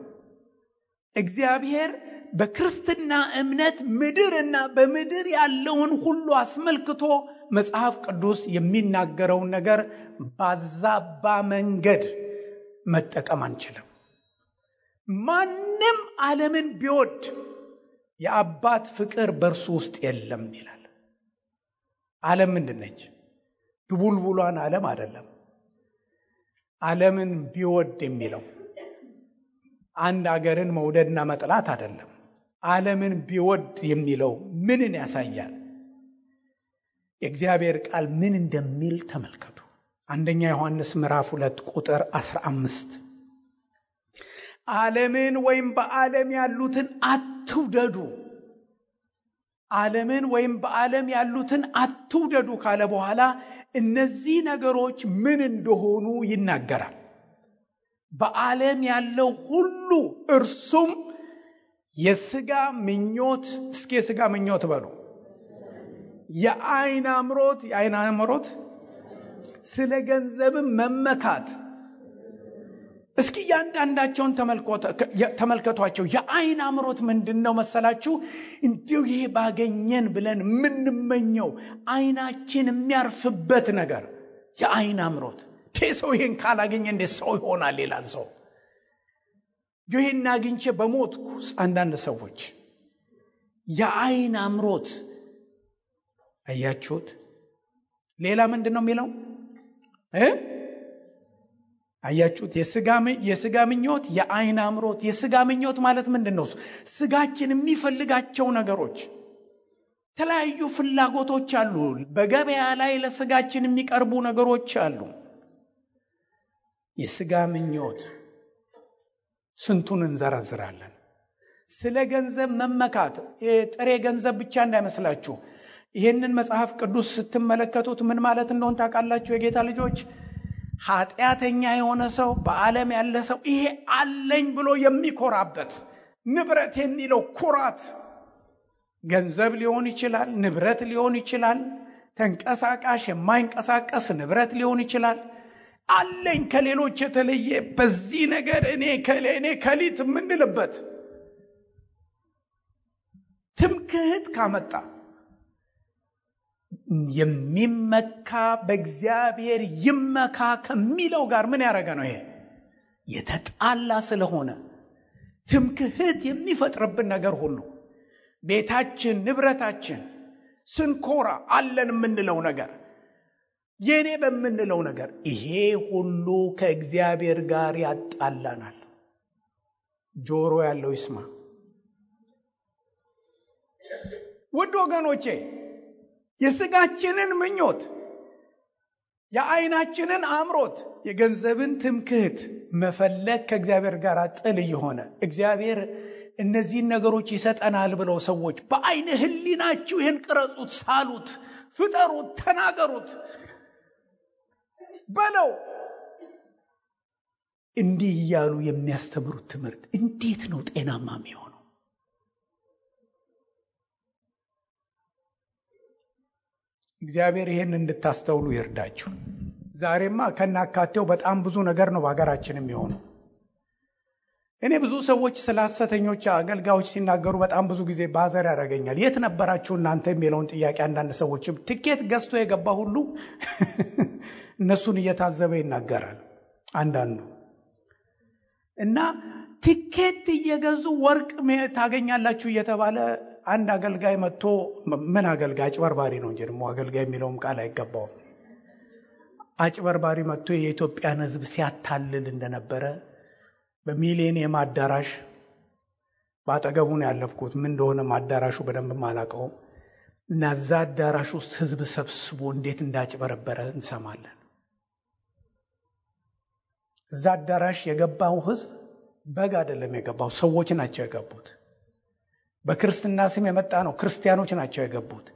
እግዚአብሔር በክርስትና እምነት ምድርና በምድር ያለውን ሁሉ አስመልክቶ መጽሐፍ ቅዱስ የሚናገረውን ነገር ባዛባ መንገድ መጠቀም አንችልም። ማንም ዓለምን ቢወድ የአባት ፍቅር በእርሱ ውስጥ የለም ይላል። ዓለም ምንድነች? ድቡልቡሏን ዓለም አይደለም። ዓለምን ቢወድ የሚለው አንድ አገርን መውደድና መጥላት አይደለም። ዓለምን ቢወድ የሚለው ምንን ያሳያል? የእግዚአብሔር ቃል ምን እንደሚል ተመልከቱ። አንደኛ ዮሐንስ ምዕራፍ 2 ቁጥር 15 ዓለምን ወይም በዓለም ያሉትን አትውደዱ፣ ዓለምን ወይም በዓለም ያሉትን አትውደዱ ካለ በኋላ እነዚህ ነገሮች ምን እንደሆኑ ይናገራል። በዓለም ያለው ሁሉ እርሱም የሥጋ ምኞት፣ እስኪ የሥጋ ምኞት በሉ፣ የዓይን አምሮት፣ ስለ ገንዘብም መመካት። እስኪ ያንዳንዳቸውን ተመልከቷቸው። የዓይን አምሮት ምንድነው መሰላችሁ? እንዲሁ ይሄ ባገኘን ብለን የምንመኘው ዓይናችን የሚያርፍበት ነገር የዓይን አምሮት። ሰው ይሄን ካላገኘ እንዴት ሰው ይሆናል ይላል ሰው። ይሄን አግኝቼ በሞትኩ አንዳንድ ሰዎች የዓይን አምሮት። አያችሁት? ሌላ ምንድነው የሚለው? አያችሁት? የሥጋ ምኞት፣ የዓይን አምሮት። የሥጋ ምኞት ማለት ምንድነው? ስጋችን የሚፈልጋቸው ነገሮች፣ የተለያዩ ፍላጎቶች አሉ። በገበያ ላይ ለስጋችን የሚቀርቡ ነገሮች አሉ። የሥጋ ምኞት ስንቱን እንዘረዝራለን። ስለ ገንዘብ መመካት፣ ጥሬ ገንዘብ ብቻ እንዳይመስላችሁ። ይህንን መጽሐፍ ቅዱስ ስትመለከቱት ምን ማለት እንደሆነ ታውቃላችሁ? የጌታ ልጆች፣ ኃጢአተኛ የሆነ ሰው፣ በዓለም ያለ ሰው ይሄ አለኝ ብሎ የሚኮራበት ንብረት የሚለው ኩራት ገንዘብ ሊሆን ይችላል፣ ንብረት ሊሆን ይችላል፣ ተንቀሳቃሽ የማይንቀሳቀስ ንብረት ሊሆን ይችላል። አለኝ ከሌሎች የተለየ በዚህ ነገር እኔ ከሊት የምንልበት ትምክህት ካመጣ የሚመካ በእግዚአብሔር ይመካ ከሚለው ጋር ምን ያደረገ ነው? ይሄ የተጣላ ስለሆነ ትምክህት የሚፈጥርብን ነገር ሁሉ ቤታችን፣ ንብረታችን ስንኮራ አለን የምንለው ነገር፣ የኔ በምንለው ነገር፣ ይሄ ሁሉ ከእግዚአብሔር ጋር ያጣላናል። ጆሮ ያለው ይስማ። ውድ ወገኖቼ፣ የሥጋችንን ምኞት፣ የዓይናችንን አምሮት፣ የገንዘብን ትምክህት መፈለግ ከእግዚአብሔር ጋር ጥል እየሆነ እግዚአብሔር እነዚህን ነገሮች ይሰጠናል ብለው ሰዎች በዓይነ ሕሊናችሁ ይህን ቅረጹት፣ ሳሉት፣ ፍጠሩት፣ ተናገሩት በለው እንዲህ እያሉ የሚያስተምሩት ትምህርት እንዴት ነው ጤናማ የሚሆነው? እግዚአብሔር ይሄን እንድታስተውሉ ይርዳችሁ። ዛሬማ ከናካቴው በጣም ብዙ ነገር ነው በሀገራችን የሚሆነው። እኔ ብዙ ሰዎች ስለ ሐሰተኞች አገልጋዮች ሲናገሩ በጣም ብዙ ጊዜ ባዘር ያደርገኛል። የት ነበራችሁ እናንተ የሚለውን ጥያቄ አንዳንድ ሰዎችም ትኬት ገዝቶ የገባ ሁሉ እነሱን እየታዘበ ይናገራል አንዳንዱ። እና ትኬት እየገዙ ወርቅ ታገኛላችሁ እየተባለ አንድ አገልጋይ መጥቶ፣ ምን አገልጋይ? አጭበርባሪ ነው እንጂ ደግሞ አገልጋይ የሚለውም ቃል አይገባውም። አጭበርባሪ መጥቶ የኢትዮጵያን ሕዝብ ሲያታልል እንደነበረ በሚሊኒየም አዳራሽ ባጠገቡ ነው ያለፍኩት። ምን እንደሆነ አዳራሹ በደንብ አላውቀውም። እና እዛ አዳራሽ ውስጥ ሕዝብ ሰብስቦ እንዴት እንዳጭበረበረ እንሰማለን። እዛ አዳራሽ የገባው ሕዝብ በግ አይደለም የገባው፣ ሰዎች ናቸው የገቡት። በክርስትና ስም የመጣ ነው፣ ክርስቲያኖች ናቸው የገቡት።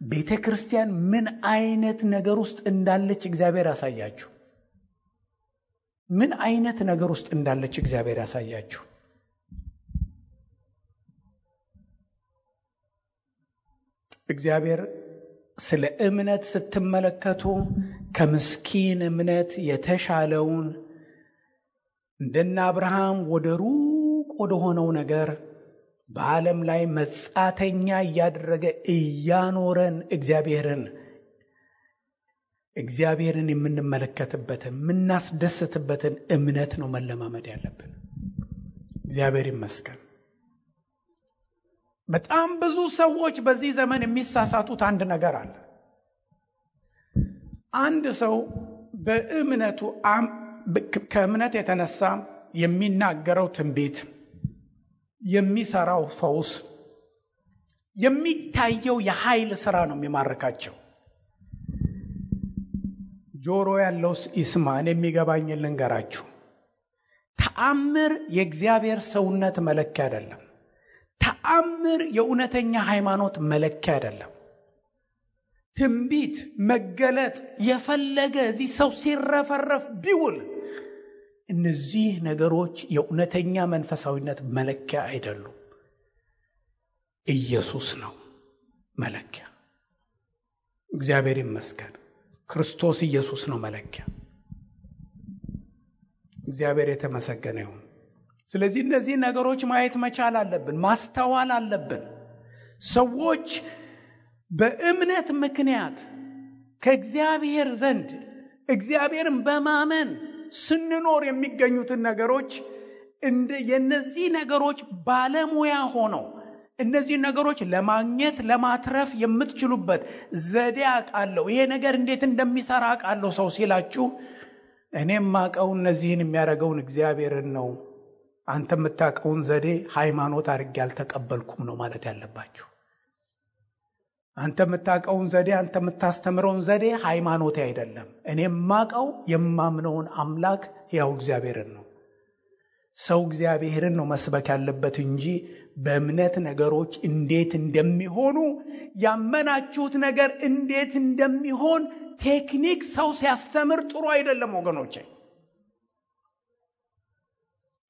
ቤተ ክርስቲያን ምን አይነት ነገር ውስጥ እንዳለች እግዚአብሔር ያሳያችሁ። ምን አይነት ነገር ውስጥ እንዳለች እግዚአብሔር ያሳያችሁ። እግዚአብሔር ስለ እምነት ስትመለከቱ ከምስኪን እምነት የተሻለውን እንደነ አብርሃም ወደ ሩቅ ወደ ሆነው ነገር በዓለም ላይ መጻተኛ እያደረገ እያኖረን እግዚአብሔርን የምንመለከትበትን የምናስደስትበትን እምነት ነው መለማመድ ያለብን። እግዚአብሔር ይመስገን። በጣም ብዙ ሰዎች በዚህ ዘመን የሚሳሳቱት አንድ ነገር አለ። አንድ ሰው በእምነቱ ከእምነት የተነሳ የሚናገረው ትንቢት፣ የሚሰራው ፈውስ፣ የሚታየው የኃይል ሥራ ነው የሚማርካቸው። ጆሮ ያለው ይስማ። እኔ የሚገባኝን ልንገራችሁ። ተአምር የእግዚአብሔር ሰውነት መለኪያ አይደለም። ተአምር የእውነተኛ ሃይማኖት መለኪያ አይደለም። ትንቢት መገለጥ የፈለገ እዚህ ሰው ሲረፈረፍ ቢውል እነዚህ ነገሮች የእውነተኛ መንፈሳዊነት መለኪያ አይደሉም። ኢየሱስ ነው መለኪያ። እግዚአብሔር ይመስገን። ክርስቶስ ኢየሱስ ነው መለኪያ። እግዚአብሔር የተመሰገነ ይሁን። ስለዚህ እነዚህ ነገሮች ማየት መቻል አለብን፣ ማስተዋል አለብን። ሰዎች በእምነት ምክንያት ከእግዚአብሔር ዘንድ እግዚአብሔርን በማመን ስንኖር የሚገኙትን ነገሮች የነዚህ ነገሮች ባለሙያ ሆነው እነዚህ ነገሮች ለማግኘት ለማትረፍ የምትችሉበት ዘዴ አውቃለሁ፣ ይሄ ነገር እንዴት እንደሚሰራ አውቃለሁ ሰው ሲላችሁ እኔም ማቀው እነዚህን የሚያደርገውን እግዚአብሔርን ነው፣ አንተ የምታውቀውን ዘዴ ሃይማኖት አድርጌ አልተቀበልኩም ነው ማለት ያለባችሁ። አንተ የምታውቀውን ዘዴ፣ አንተ የምታስተምረውን ዘዴ ሃይማኖት አይደለም። እኔም ማቀው የማምነውን አምላክ ያው እግዚአብሔርን ነው። ሰው እግዚአብሔርን ነው መስበክ ያለበት እንጂ በእምነት ነገሮች እንዴት እንደሚሆኑ ያመናችሁት ነገር እንዴት እንደሚሆን ቴክኒክ ሰው ሲያስተምር ጥሩ አይደለም ወገኖቼ።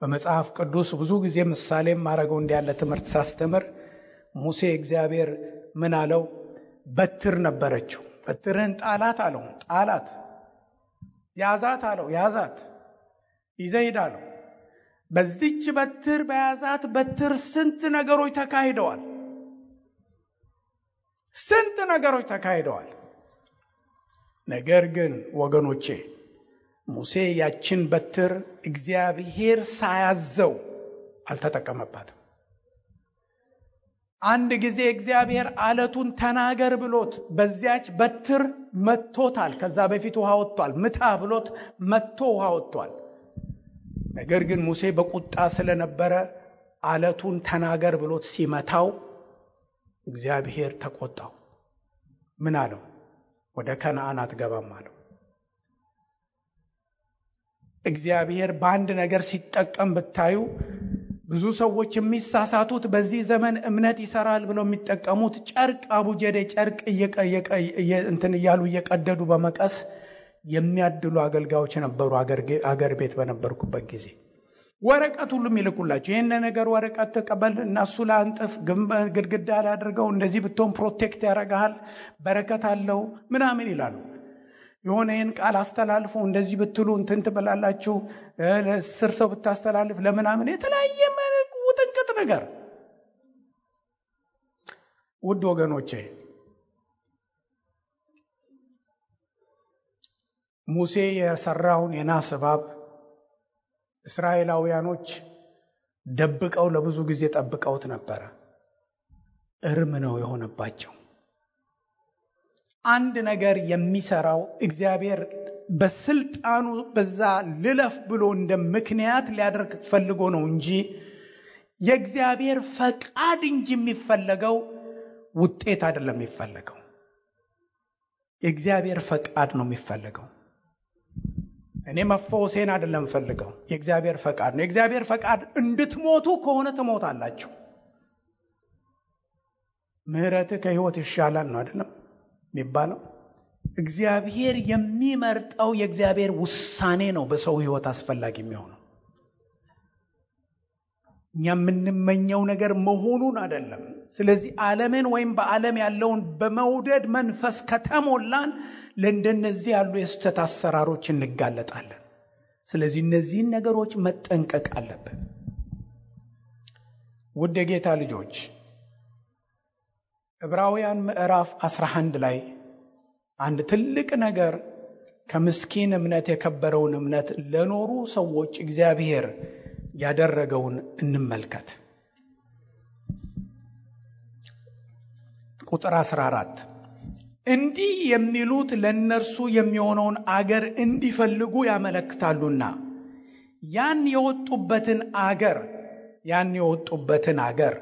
በመጽሐፍ ቅዱስ ብዙ ጊዜ ምሳሌ ማረገው እንዲያለ ትምህርት ሳስተምር ሙሴ እግዚአብሔር ምን አለው? በትር ነበረችው። በትርህን ጣላት አለው። ጣላት። ያዛት አለው። ያዛት። ይዘይድ አለው። በዚች በትር በያዛት በትር ስንት ነገሮች ተካሂደዋል። ስንት ነገሮች ተካሂደዋል። ነገር ግን ወገኖቼ ሙሴ ያችን በትር እግዚአብሔር ሳያዘው አልተጠቀመባትም። አንድ ጊዜ እግዚአብሔር አለቱን ተናገር ብሎት በዚያች በትር መቶታል። ከዛ በፊት ውሃ ወጥቷል። ምታ ብሎት መቶ ውሃ ወጥቷል። ነገር ግን ሙሴ በቁጣ ስለነበረ አለቱን ተናገር ብሎት ሲመታው እግዚአብሔር ተቆጣው። ምን አለው? ወደ ከነዓን አትገባም አለው። እግዚአብሔር በአንድ ነገር ሲጠቀም ብታዩ ብዙ ሰዎች የሚሳሳቱት በዚህ ዘመን እምነት ይሰራል ብለው የሚጠቀሙት ጨርቅ አቡጀዴ ጨርቅ እንትን እያሉ እየቀደዱ በመቀስ የሚያድሉ አገልጋዮች ነበሩ። አገር ቤት በነበርኩበት ጊዜ ወረቀት ሁሉ ይልኩላቸው። ይሄን ነገር ወረቀት ተቀበል እና እሱ ላይ አንጥፍ፣ ግድግዳ ላይ አድርገው፣ እንደዚህ ብትሆን ፕሮቴክት ያደርጋል፣ በረከት አለው ምናምን ይላሉ። የሆነ ይህን ቃል አስተላልፉ፣ እንደዚህ ብትሉ እንትን ትበላላችሁ፣ ለስር ሰው ብታስተላልፍ ለምናምን የተለያየ ውጥንቅጥ ነገር። ውድ ወገኖቼ ሙሴ የሰራውን የናስ እባብ እስራኤላውያኖች ደብቀው ለብዙ ጊዜ ጠብቀውት ነበረ። እርም ነው የሆነባቸው። አንድ ነገር የሚሰራው እግዚአብሔር በስልጣኑ በዛ ልለፍ ብሎ እንደ ምክንያት ሊያደርግ ፈልጎ ነው እንጂ የእግዚአብሔር ፈቃድ እንጂ የሚፈለገው ውጤት አይደለም የሚፈለገው። የእግዚአብሔር ፈቃድ ነው የሚፈለገው። እኔ መፈወሴን አይደለም ፈልገው፣ የእግዚአብሔር ፈቃድ ነው። የእግዚአብሔር ፈቃድ እንድትሞቱ ከሆነ ትሞታላችሁ። ምህረት ከህይወት ይሻላል ነው አይደለም የሚባለው። እግዚአብሔር የሚመርጠው የእግዚአብሔር ውሳኔ ነው በሰው ህይወት አስፈላጊ የሚሆነው። እኛ የምንመኘው ነገር መሆኑን አይደለም። ስለዚህ ዓለምን ወይም በዓለም ያለውን በመውደድ መንፈስ ከተሞላን ለእንደነዚህ ያሉ የስተት አሰራሮች እንጋለጣለን። ስለዚህ እነዚህን ነገሮች መጠንቀቅ አለብን። ውድ የጌታ ልጆች ዕብራውያን ምዕራፍ 11 ላይ አንድ ትልቅ ነገር ከምስኪን እምነት የከበረውን እምነት ለኖሩ ሰዎች እግዚአብሔር ያደረገውን እንመልከት። ቁጥር 14 እንዲህ የሚሉት ለእነርሱ የሚሆነውን አገር እንዲፈልጉ ያመለክታሉና ያን የወጡበትን አገር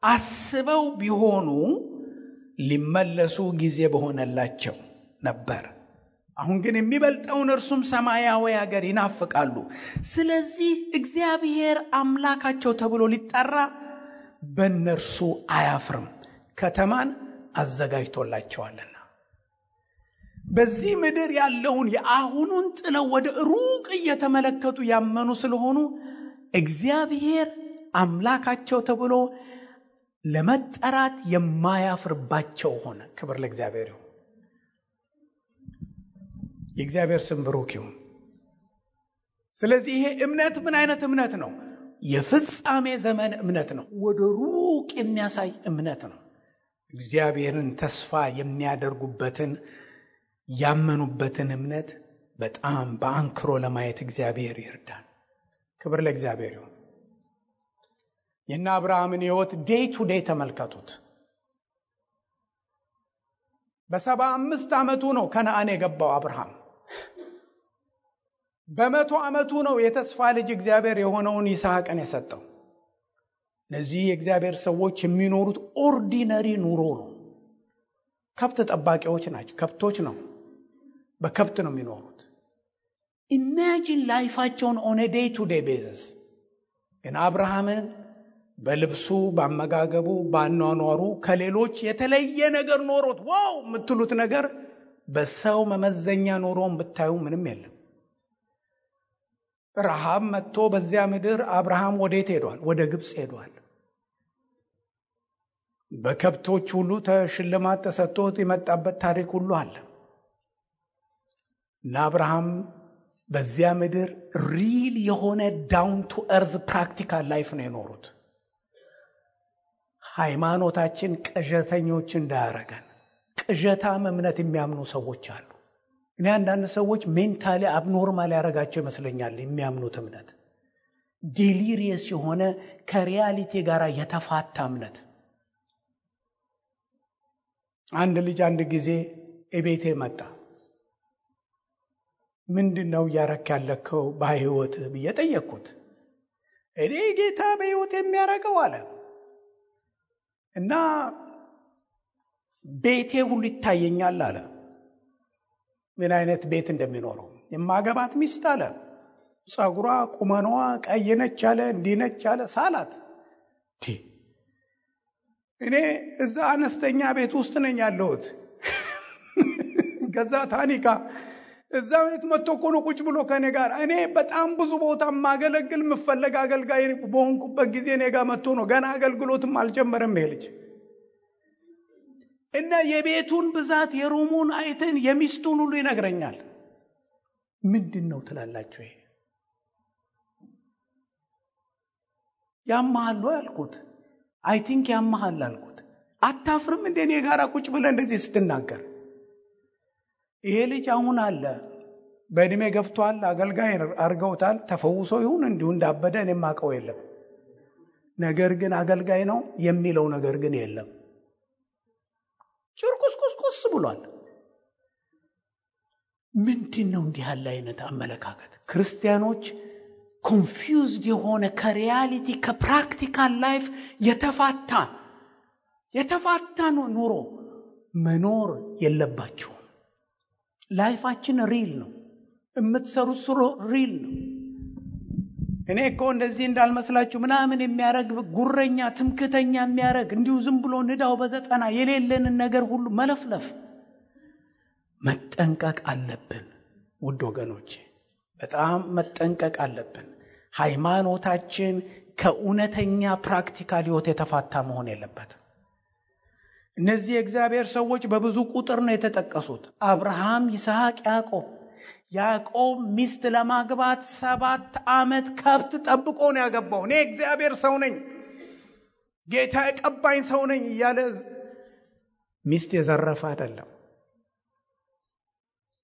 አስበው ቢሆኑ ሊመለሱ ጊዜ በሆነላቸው ነበር። አሁን ግን የሚበልጠውን እርሱም ሰማያዊ አገር ይናፍቃሉ። ስለዚህ እግዚአብሔር አምላካቸው ተብሎ ሊጠራ በእነርሱ አያፍርም፣ ከተማን አዘጋጅቶላቸዋልና። በዚህ ምድር ያለውን የአሁኑን ጥለው ወደ ሩቅ እየተመለከቱ ያመኑ ስለሆኑ እግዚአብሔር አምላካቸው ተብሎ ለመጠራት የማያፍርባቸው ሆነ። ክብር ለእግዚአብሔር ይሁን። የእግዚአብሔር ስም ብሩክ ይሁን። ስለዚህ ይሄ እምነት ምን አይነት እምነት ነው? የፍጻሜ ዘመን እምነት ነው። ወደ ሩቅ የሚያሳይ እምነት ነው። እግዚአብሔርን ተስፋ የሚያደርጉበትን ያመኑበትን እምነት በጣም በአንክሮ ለማየት እግዚአብሔር ይርዳን። ክብር ለእግዚአብሔር ይሁን። የእነ አብርሃምን ሕይወት ዴይ ቱ ዴይ ተመልከቱት። በ75 ዓመቱ ነው ከነዓን የገባው አብርሃም። በ100 ዓመቱ ነው የተስፋ ልጅ እግዚአብሔር የሆነውን ይስሐቅን የሰጠው። እነዚህ የእግዚአብሔር ሰዎች የሚኖሩት ኦርዲነሪ ኑሮ ነው። ከብት ጠባቂዎች ናቸው። ከብቶች ነው፣ በከብት ነው የሚኖሩት። ኢማጂን ላይፋቸውን ኦን ኤ ዴይ ቱ ዴይ ቤዚስ። ግን አብርሃምን በልብሱ፣ በአመጋገቡ፣ በአኗኗሩ ከሌሎች የተለየ ነገር ኖሮት ዋው የምትሉት ነገር በሰው መመዘኛ ኖሮን ብታዩ ምንም የለም። ረሃብ መጥቶ በዚያ ምድር አብርሃም ወዴት ሄዷል? ወደ ግብፅ ሄዷል። በከብቶች ሁሉ ሽልማት ተሰጥቶት የመጣበት ታሪክ ሁሉ አለ። እና አብርሃም በዚያ ምድር ሪል የሆነ ዳውን ቱ እርዝ ፕራክቲካል ላይፍ ነው የኖሩት። ሃይማኖታችን ቅዠተኞች እንዳያረገን፣ ቅዠታም እምነት የሚያምኑ ሰዎች አሉ። እኔ አንዳንድ ሰዎች ሜንታሊ አብኖርማል ያደረጋቸው ይመስለኛል። የሚያምኑት እምነት ዴሊሪየስ የሆነ ከሪያሊቲ ጋር የተፋታ እምነት። አንድ ልጅ አንድ ጊዜ እቤቴ መጣ። ምንድነው እያረክ ያለከው በህይወት ብዬ ጠየቅኩት። እኔ ጌታ በህይወት የሚያረገው አለ እና ቤቴ ሁሉ ይታየኛል አለ። ምን አይነት ቤት እንደሚኖረው የማገባት ሚስት አለ። ጸጉሯ ቁመኗ ቀይ ነች አለ፣ እንዲህ ነች አለ። ሳላት እኔ እዛ አነስተኛ ቤት ውስጥ ነኝ ያለሁት። ገዛ ታኒካ እዛ ቤት መጥቶ እኮ ነው ቁጭ ብሎ ከኔ ጋር። እኔ በጣም ብዙ ቦታ ማገለግል ምፈለግ አገልጋይ በሆንኩበት ጊዜ እኔ ጋር መጥቶ ነው። ገና አገልግሎትም አልጀመረም ይሄ ልጅ። እና የቤቱን ብዛት የሩሙን አይተን የሚስቱን ሁሉ ይነግረኛል። ምንድነው ትላላችሁ? ይሄ ያማሃል ያልኩት አይ ቲንክ ያማሃል አልኩት። አታፍርም እንደ እኔ ጋር ቁጭ ብለህ እንደዚህ ስትናገር? ይሄ ልጅ አሁን አለ በእድሜ ገፍቷል፣ አገልጋይ አርገውታል። ተፈውሶ ይሁን እንዲሁ እንዳበደ እኔም አውቀው የለም። ነገር ግን አገልጋይ ነው የሚለው ነገር ግን የለም። ጭርቁስቁስቁስ ብሏል። ምንድነው እንዲህ ያለ አይነት አመለካከት? ክርስቲያኖች ኮንፊውዝድ የሆነ ከሪያሊቲ ከፕራክቲካል ላይፍ የተፋታ ኑሮ መኖር የለባቸውም። ላይፋችን ሪል ነው። የምትሰሩት ስሩ ሪል ነው። እኔ እኮ እንደዚህ እንዳልመስላችሁ ምናምን የሚያረግ ጉረኛ ትምክተኛ የሚያረግ እንዲሁ ዝም ብሎ ንዳው በዘጠና የሌለንን ነገር ሁሉ መለፍለፍ መጠንቀቅ አለብን። ውድ ወገኖቼ በጣም መጠንቀቅ አለብን። ሃይማኖታችን ከእውነተኛ ፕራክቲካል ህይወት የተፋታ መሆን የለበትም። እነዚህ የእግዚአብሔር ሰዎች በብዙ ቁጥር ነው የተጠቀሱት። አብርሃም፣ ይስሐቅ፣ ያዕቆብ ሚስት ለማግባት 7 ዓመት ከብት ጠብቆ ነው ያገባው። እኔ እግዚአብሔር ሰው ነኝ፣ ጌታ የቀባኝ ሰው ነኝ እያለ ሚስት የዘረፈ አይደለም።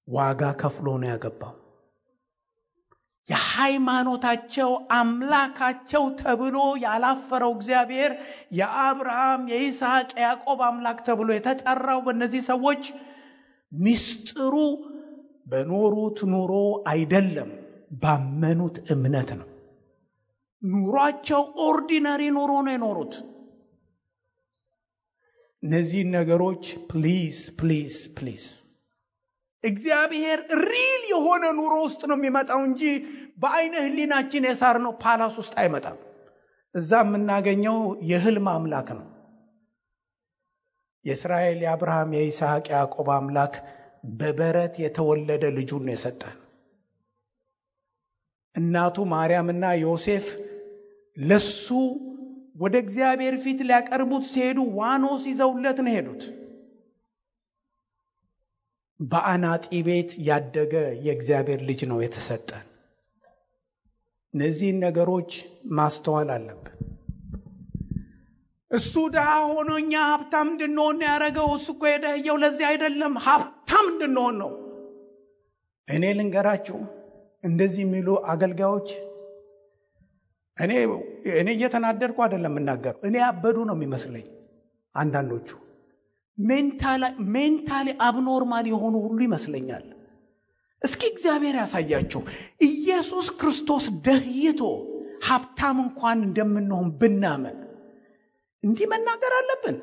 ዋጋ ከፍሎ ነው ያገባው። የሃይማኖታቸው አምላካቸው ተብሎ ያላፈረው እግዚአብሔር የአብርሃም፣ የይስሐቅ፣ የያዕቆብ አምላክ ተብሎ የተጠራው በእነዚህ ሰዎች ምስጢሩ በኖሩት ኑሮ አይደለም፣ ባመኑት እምነት ነው። ኑሯቸው ኦርዲነሪ ኑሮ ነው የኖሩት። እነዚህ ነገሮች ፕሊዝ ፕሊዝ ፕሊዝ እግዚአብሔር ሪል የሆነ ኑሮ ውስጥ ነው የሚመጣው እንጂ በአይነ ህሊናችን የሳርነው ፓላስ ውስጥ አይመጣም። እዛ የምናገኘው የህልም አምላክ ነው። የእስራኤል የአብርሃም፣ የይስሐቅ፣ ያዕቆብ አምላክ በበረት የተወለደ ልጁን ነው የሰጠን። እናቱ ማርያምና ዮሴፍ ለሱ ወደ እግዚአብሔር ፊት ሊያቀርቡት ሲሄዱ ዋኖስ ይዘውለት ነው ሄዱት። በአናጢ ቤት ያደገ የእግዚአብሔር ልጅ ነው የተሰጠን። እነዚህን ነገሮች ማስተዋል አለብን። እሱ ድሃ ሆኖ እኛ ሀብታም እንድንሆን ያደረገው እሱ እኮ የደህየው ለዚህ አይደለም፣ ሀብታም እንድንሆን ነው። እኔ ልንገራችሁ፣ እንደዚህ የሚሉ አገልጋዮች እኔ እየተናደድኩ አይደለም እናገር፣ እኔ ያበዱ ነው የሚመስለኝ። አንዳንዶቹ ሜንታሊ አብኖርማል የሆኑ ሁሉ ይመስለኛል። እስኪ እግዚአብሔር ያሳያችሁ። ኢየሱስ ክርስቶስ ደህይቶ ሀብታም እንኳን እንደምንሆን ብናመን እንዲህ መናገር አለብን?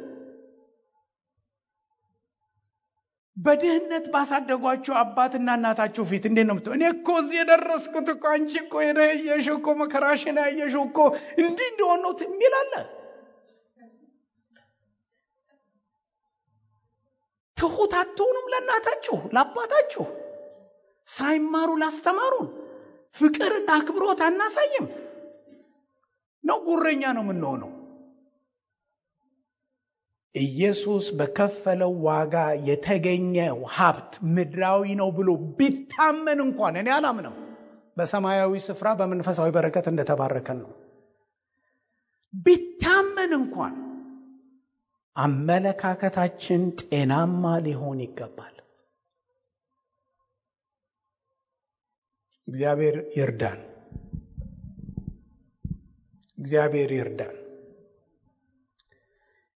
በድህነት ባሳደጓቸው አባትና እናታቸው ፊት እንዴት ነው እኔ እኮ እዚህ የደረስኩት እኮ አንቺ እኮ የደየሽው እኮ መከራሽን ያየሽው እኮ እንዲህ እንደሆነ ነው የሚላለ። ትሁት አትሆኑም ለእናታችሁ ለአባታችሁ? ሳይማሩ ላስተማሩን ፍቅርና አክብሮት አናሳይም ነው? ጉረኛ ነው የምንሆነው? ኢየሱስ በከፈለው ዋጋ የተገኘው ሀብት ምድራዊ ነው ብሎ ቢታመን እንኳን እኔ አላምንም። በሰማያዊ ስፍራ በመንፈሳዊ በረከት እንደተባረከን ነው። ቢታመን እንኳን አመለካከታችን ጤናማ ሊሆን ይገባል። እግዚአብሔር ይርዳን። እግዚአብሔር ይርዳን።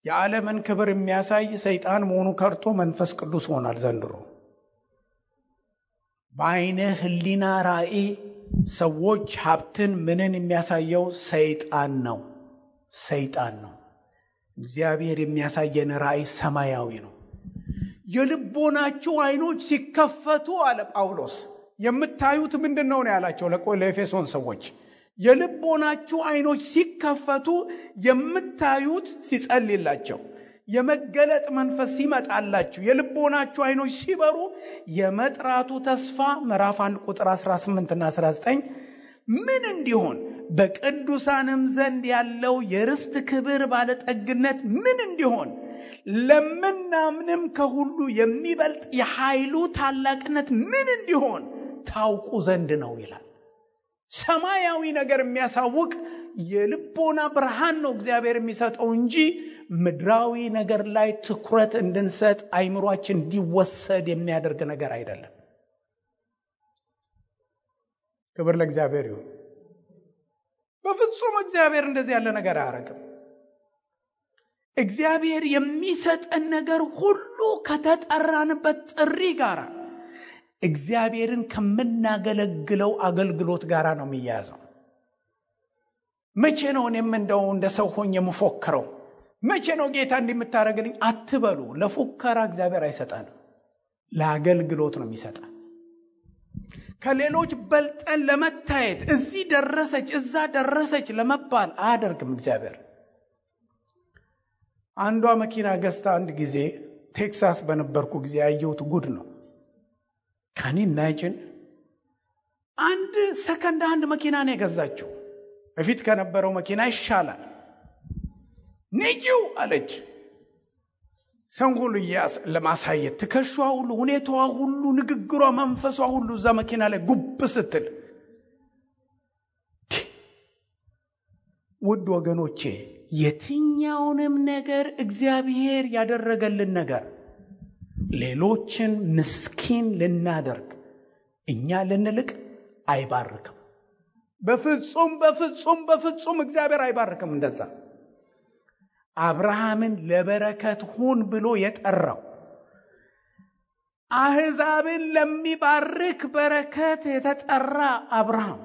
የዓለምን ክብር የሚያሳይ ሰይጣን መሆኑ ከርቶ መንፈስ ቅዱስ ሆኗል ዘንድሮ። በአይነ ህሊና ራእይ ሰዎች ሀብትን ምንን የሚያሳየው ሰይጣን ነው። ሰይጣን ነው። እግዚአብሔር የሚያሳየን ራእይ ሰማያዊ ነው። የልቦናችሁ አይኖች ሲከፈቱ አለ ጳውሎስ። የምታዩት ምንድነው ነው ያላቸው ለኤፌሶን ሰዎች። የልቦናችሁ አይኖች ሲከፈቱ የምታዩት ሲጸልይላቸው የመገለጥ መንፈስ ሲመጣላችሁ የልቦናችሁ አይኖች ሲበሩ የመጥራቱ ተስፋ ምዕራፍ 1 ቁጥር 18 እና 19 ምን እንዲሆን በቅዱሳንም ዘንድ ያለው የርስት ክብር ባለጠግነት ምን እንዲሆን ለምናምንም ከሁሉ የሚበልጥ የኃይሉ ታላቅነት ምን እንዲሆን ታውቁ ዘንድ ነው ይላል። ሰማያዊ ነገር የሚያሳውቅ የልቦና ብርሃን ነው እግዚአብሔር የሚሰጠው እንጂ ምድራዊ ነገር ላይ ትኩረት እንድንሰጥ አይምሮአችን እንዲወሰድ የሚያደርግ ነገር አይደለም። ክብር ለእግዚአብሔር ይሁን። በፍጹም እግዚአብሔር እንደዚህ ያለ ነገር አያደርግም። እግዚአብሔር የሚሰጠን ነገር ሁሉ ከተጠራንበት ጥሪ ጋር እግዚአብሔርን ከምናገለግለው አገልግሎት ጋር ነው የሚያያዘው። መቼ ነው እኔም እንደው እንደ ሰው ሆኜ የምፎክረው? መቼ ነው ጌታ እንደምታረግልኝ አትበሉ። ለፉከራ እግዚአብሔር አይሰጠንም፣ ለአገልግሎት ነው የሚሰጠን። ከሌሎች በልጠን ለመታየት እዚህ ደረሰች እዛ ደረሰች ለመባል አያደርግም እግዚአብሔር። አንዷ መኪና ገዝታ አንድ ጊዜ ቴክሳስ በነበርኩ ጊዜ ያየሁት ጉድ ነው። ካኒ ናይጅን አንድ ሰከንድ አንድ መኪና ነው የገዛችው። በፊት ከነበረው መኪና ይሻላል። ንጂው አለች። ሰው ሁሉ ለማሳየት ትከሻዋ ሁሉ፣ ሁኔታዋ ሁሉ፣ ንግግሯ፣ መንፈሷ ሁሉ እዛ መኪና ላይ ጉብ ስትል፣ ውድ ወገኖቼ የትኛውንም ነገር እግዚአብሔር ያደረገልን ነገር ሌሎችን ምስኪን ልናደርግ እኛ ልንልቅ አይባርክም። በፍጹም በፍጹም በፍጹም እግዚአብሔር አይባርክም። እንደዛ አብርሃምን ለበረከት ሁን ብሎ የጠራው አሕዛብን ለሚባርክ በረከት የተጠራ አብርሃም፣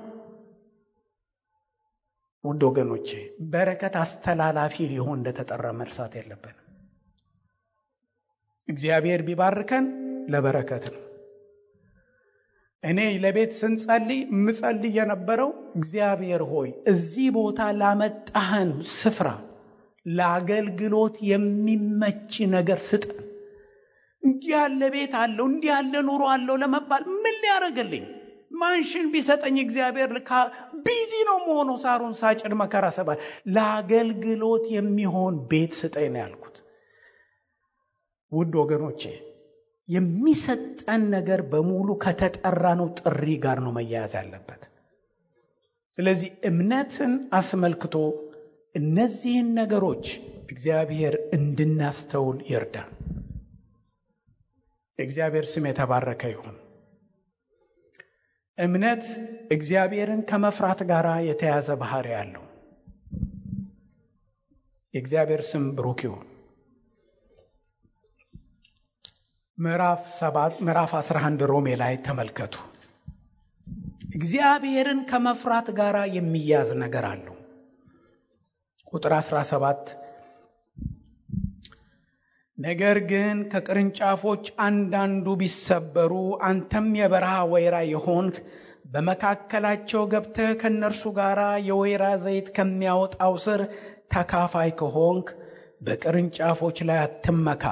ውድ ወገኖቼ በረከት አስተላላፊ ሊሆን እንደተጠራ መርሳት የለብንም። እግዚአብሔር ቢባርከን ለበረከት ነው። እኔ ለቤት ስንጸልይ ምጸልይ የነበረው እግዚአብሔር ሆይ እዚህ ቦታ ላመጣህን ስፍራ ለአገልግሎት የሚመች ነገር ስጠን። እንዲህ ያለ ቤት አለው፣ እንዲህ ያለ ኑሮ አለው ለመባል ምን ሊያደርግልኝ? ማንሽን ቢሰጠኝ እግዚአብሔር ቢዚ ነው መሆኑ፣ ሳሩን ሳጭድ መከራ ሰባል። ለአገልግሎት የሚሆን ቤት ስጠኝ ነው ያልኩት። ውድ ወገኖቼ የሚሰጠን ነገር በሙሉ ከተጠራነው ጥሪ ጋር ነው መያያዝ ያለበት። ስለዚህ እምነትን አስመልክቶ እነዚህን ነገሮች እግዚአብሔር እንድናስተውል ይርዳን። እግዚአብሔር ስም የተባረከ ይሁን። እምነት እግዚአብሔርን ከመፍራት ጋር የተያዘ ባህሪ ያለው። የእግዚአብሔር ስም ብሩክ ይሁን። ምዕራፍ 11 ሮሜ ላይ ተመልከቱ። እግዚአብሔርን ከመፍራት ጋር የሚያዝ ነገር አለው። ቁጥር 17 ነገር ግን ከቅርንጫፎች አንዳንዱ ቢሰበሩ አንተም የበረሃ ወይራ የሆንክ በመካከላቸው ገብተህ ከነርሱ ጋር የወይራ ዘይት ከሚያወጣው ስር ተካፋይ ከሆንክ በቅርንጫፎች ላይ አትመካ።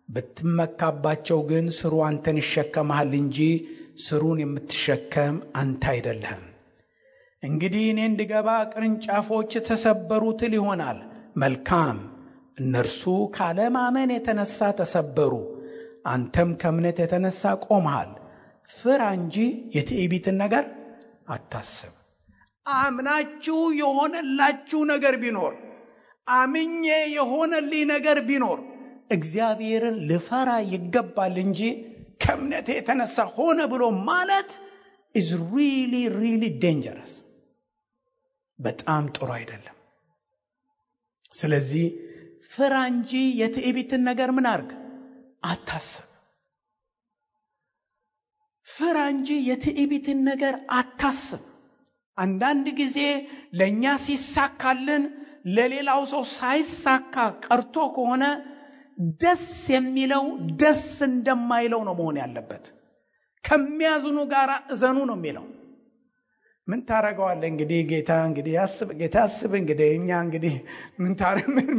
ብትመካባቸው ግን ስሩ አንተን ይሸከማል እንጂ ስሩን የምትሸከም አንተ አይደለህም። እንግዲህ እኔ እንድገባ ቅርንጫፎች ተሰበሩ ትል ይሆናል። መልካም፣ እነርሱ ካለማመን የተነሳ ተሰበሩ፣ አንተም ከእምነት የተነሳ ቆመሃል። ፍራ እንጂ የትዕቢትን ነገር አታስብ። አምናችሁ የሆነላችሁ ነገር ቢኖር፣ አምኜ የሆነልኝ ነገር ቢኖር እግዚአብሔርን ልፈራ ይገባል እንጂ ከእምነቴ የተነሳ ሆነ ብሎ ማለት is really dangerous። በጣም ጥሩ አይደለም። ስለዚህ ፍራ እንጂ የትዕቢትን ነገር ምን አርግ አታስብ። ፍራ እንጂ የትዕቢትን ነገር አታስብ። አንዳንድ ጊዜ ለኛ ሲሳካልን ለሌላው ሰው ሳይሳካ ቀርቶ ከሆነ ደስ የሚለው ደስ እንደማይለው ነው መሆን ያለበት። ከሚያዝኑ ጋር እዘኑ ነው የሚለው። ምን ታረጋዋለህ እንግዲህ ጌታ እንግዲህ ያስብ እንግዲህ እኛ እንግዲህ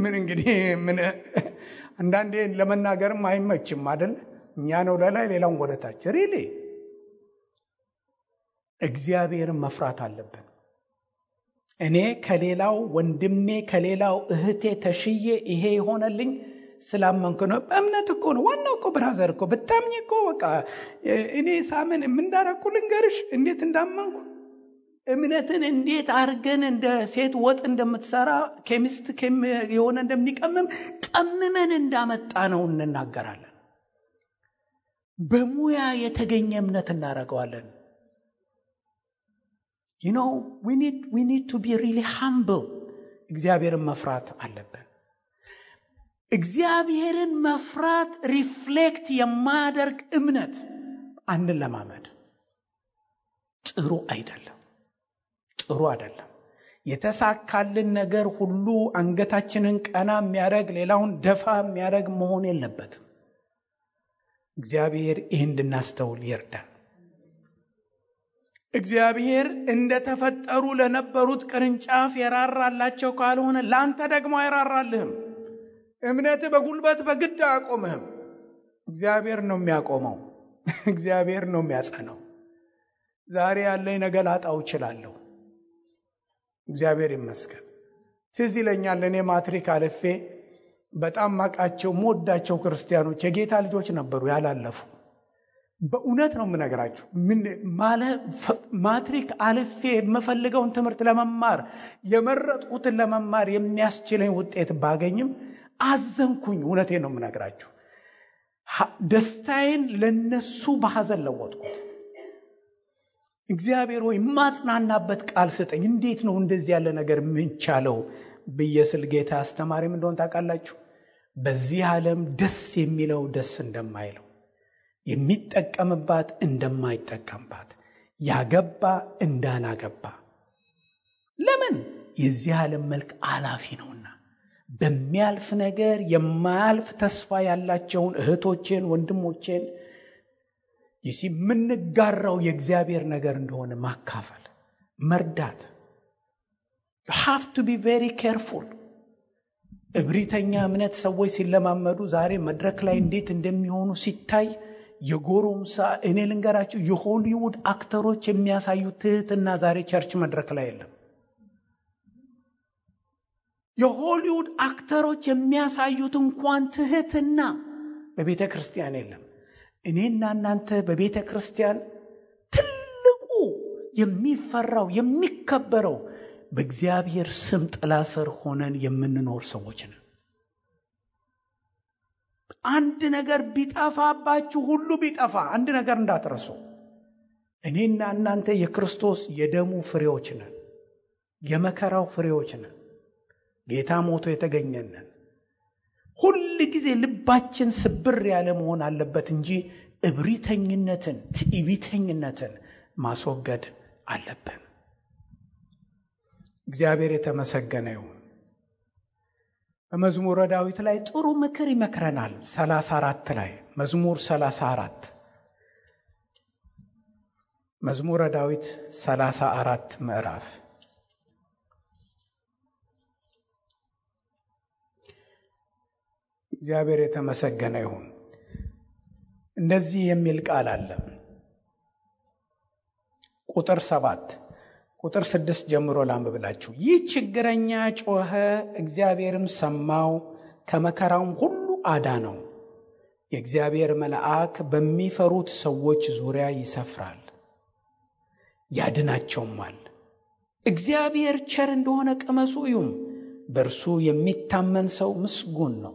ምን እንግዲህ ምን አንዳንዴ ለመናገርም አይመችም አይደል? እኛ ነው ለላይ ሌላውን ወደታች ሪሊ እግዚአብሔርን መፍራት አለብን። እኔ ከሌላው ወንድሜ ከሌላው እህቴ ተሽዬ ይሄ ይሆነልኝ ስላመንኩ ነው። እምነት እኮ ነው ዋናው እኮ ብራዘር እኮ ብታምኝ እኮ በቃ እኔ ሳምን እንዳረኩ ልንገርሽ እንዴት እንዳመንኩ። እምነትን እንዴት አርገን እንደ ሴት ወጥ እንደምትሰራ ኬሚስት የሆነ እንደሚቀምም ቀምመን እንዳመጣ ነው እንናገራለን። በሙያ የተገኘ እምነት እናረጋዋለን። you know we need to be really humble። እግዚአብሔርን መፍራት አለብን። እግዚአብሔርን መፍራት ሪፍሌክት የማያደርግ እምነት አንድን ለማመድ ጥሩ አይደለም። የተሳካልን ነገር ሁሉ አንገታችንን ቀና የሚያደርግ ሌላውን ደፋ የሚያደርግ መሆን የለበትም። እግዚአብሔር ይህን እንድናስተውል ይርዳል። እግዚአብሔር እንደተፈጠሩ ለነበሩት ቅርንጫፍ የራራላቸው ካልሆነ ላንተ ደግሞ አይራራልህም። እምነት በጉልበት በግድ አያቆምህም። እግዚአብሔር ነው የሚያቆመው። እግዚአብሔር ነው የሚያጸናው። ዛሬ ያለኝ ነገ ላጣው እችላለሁ። እግዚአብሔር ይመስገን። ትዝ ይለኛል እኔ ማትሪክ አልፌ በጣም ማቃቸው ሞዳቸው ክርስቲያኖች የጌታ ልጆች ነበሩ ያላለፉ። በእውነት ነው የምነግራችሁ። ማትሪክ አልፌ የምፈልገውን ትምህርት ለመማር የመረጥኩትን ለመማር የሚያስችለኝ ውጤት ባገኝም አዘንኩኝ። እውነቴን ነው የምነግራችሁ። ደስታዬን ለነሱ በሐዘን ለወጥኩት። እግዚአብሔር ሆይ ማጽናናበት ቃል ስጠኝ፣ እንዴት ነው እንደዚህ ያለ ነገር ምንቻለው ብዬ ስል ጌታ አስተማሪም እንደሆን ታውቃላችሁ። በዚህ ዓለም ደስ የሚለው ደስ እንደማይለው፣ የሚጠቀምባት እንደማይጠቀምባት፣ ያገባ እንዳላገባ። ለምን? የዚህ ዓለም መልክ አላፊ ነውና። በሚያልፍ ነገር የማያልፍ ተስፋ ያላቸውን እህቶቼን ወንድሞቼን የምንጋራው የእግዚአብሔር ነገር እንደሆነ ማካፈል፣ መርዳት። you have to be very careful። እብሪተኛ እምነት ሰዎች ሲለማመዱ ዛሬ መድረክ ላይ እንዴት እንደሚሆኑ ሲታይ የጎረምሳ እኔ ልንገራችሁ፣ የሆሊውድ አክተሮች የሚያሳዩት ትህትና ዛሬ ቸርች መድረክ ላይ የለም። የሆሊውድ አክተሮች የሚያሳዩት እንኳን ትህትና በቤተ ክርስቲያን የለም። እኔና እናንተ በቤተ ክርስቲያን ትልቁ የሚፈራው የሚከበረው በእግዚአብሔር ስም ጥላ ስር ሆነን የምንኖር ሰዎች ነን። አንድ ነገር ቢጠፋባችሁ ሁሉ ቢጠፋ አንድ ነገር እንዳትረሱ፣ እኔና እናንተ የክርስቶስ የደሙ ፍሬዎች ነን፣ የመከራው ፍሬዎች ነን፣ ጌታ ሞቶ የተገኘነን። ሁል ጊዜ ልባችን ስብር ያለ መሆን አለበት እንጂ እብሪተኝነትን፣ ትዕቢተኝነትን ማስወገድ አለብን። እግዚአብሔር የተመሰገነ ይሁን። በመዝሙረ ዳዊት ላይ ጥሩ ምክር ይመክረናል። 34 ላይ መዝሙር 34 መዝሙረ ዳዊት 34 ምዕራፍ እግዚአብሔር የተመሰገነ ይሁን። እንደዚህ የሚል ቃል አለ። ቁጥር 7 ቁጥር 6 ጀምሮ ላንብብላችሁ። ይህ ችግረኛ ጮኸ፣ እግዚአብሔርም ሰማው፣ ከመከራውም ሁሉ አዳነው። የእግዚአብሔር መልአክ በሚፈሩት ሰዎች ዙሪያ ይሰፍራል ያድናቸውማል። እግዚአብሔር ቸር እንደሆነ ቅመሱ እዩም፣ በእርሱ የሚታመን ሰው ምስጉን ነው።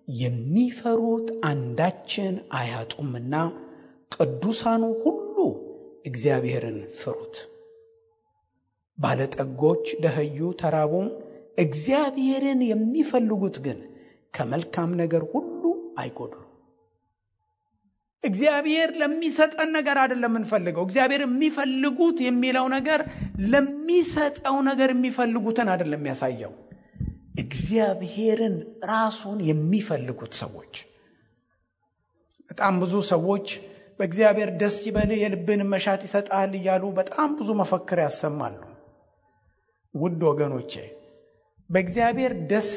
የሚፈሩት አንዳችን አያጡምና ቅዱሳኑ ሁሉ እግዚአብሔርን ፍሩት። ባለጠጎች ደኸዩ ተራቡም፣ እግዚአብሔርን የሚፈልጉት ግን ከመልካም ነገር ሁሉ አይጎድሉ። እግዚአብሔር ለሚሰጠን ነገር አይደለም የምንፈልገው። እግዚአብሔር የሚፈልጉት የሚለው ነገር ለሚሰጠው ነገር የሚፈልጉትን አይደለም የሚያሳየው። እግዚአብሔርን ራሱን የሚፈልጉት ሰዎች። በጣም ብዙ ሰዎች በእግዚአብሔር ደስ ይበልህ የልብን መሻት ይሰጣል እያሉ በጣም ብዙ መፈክር ያሰማሉ። ውድ ወገኖቼ በእግዚአብሔር ደስ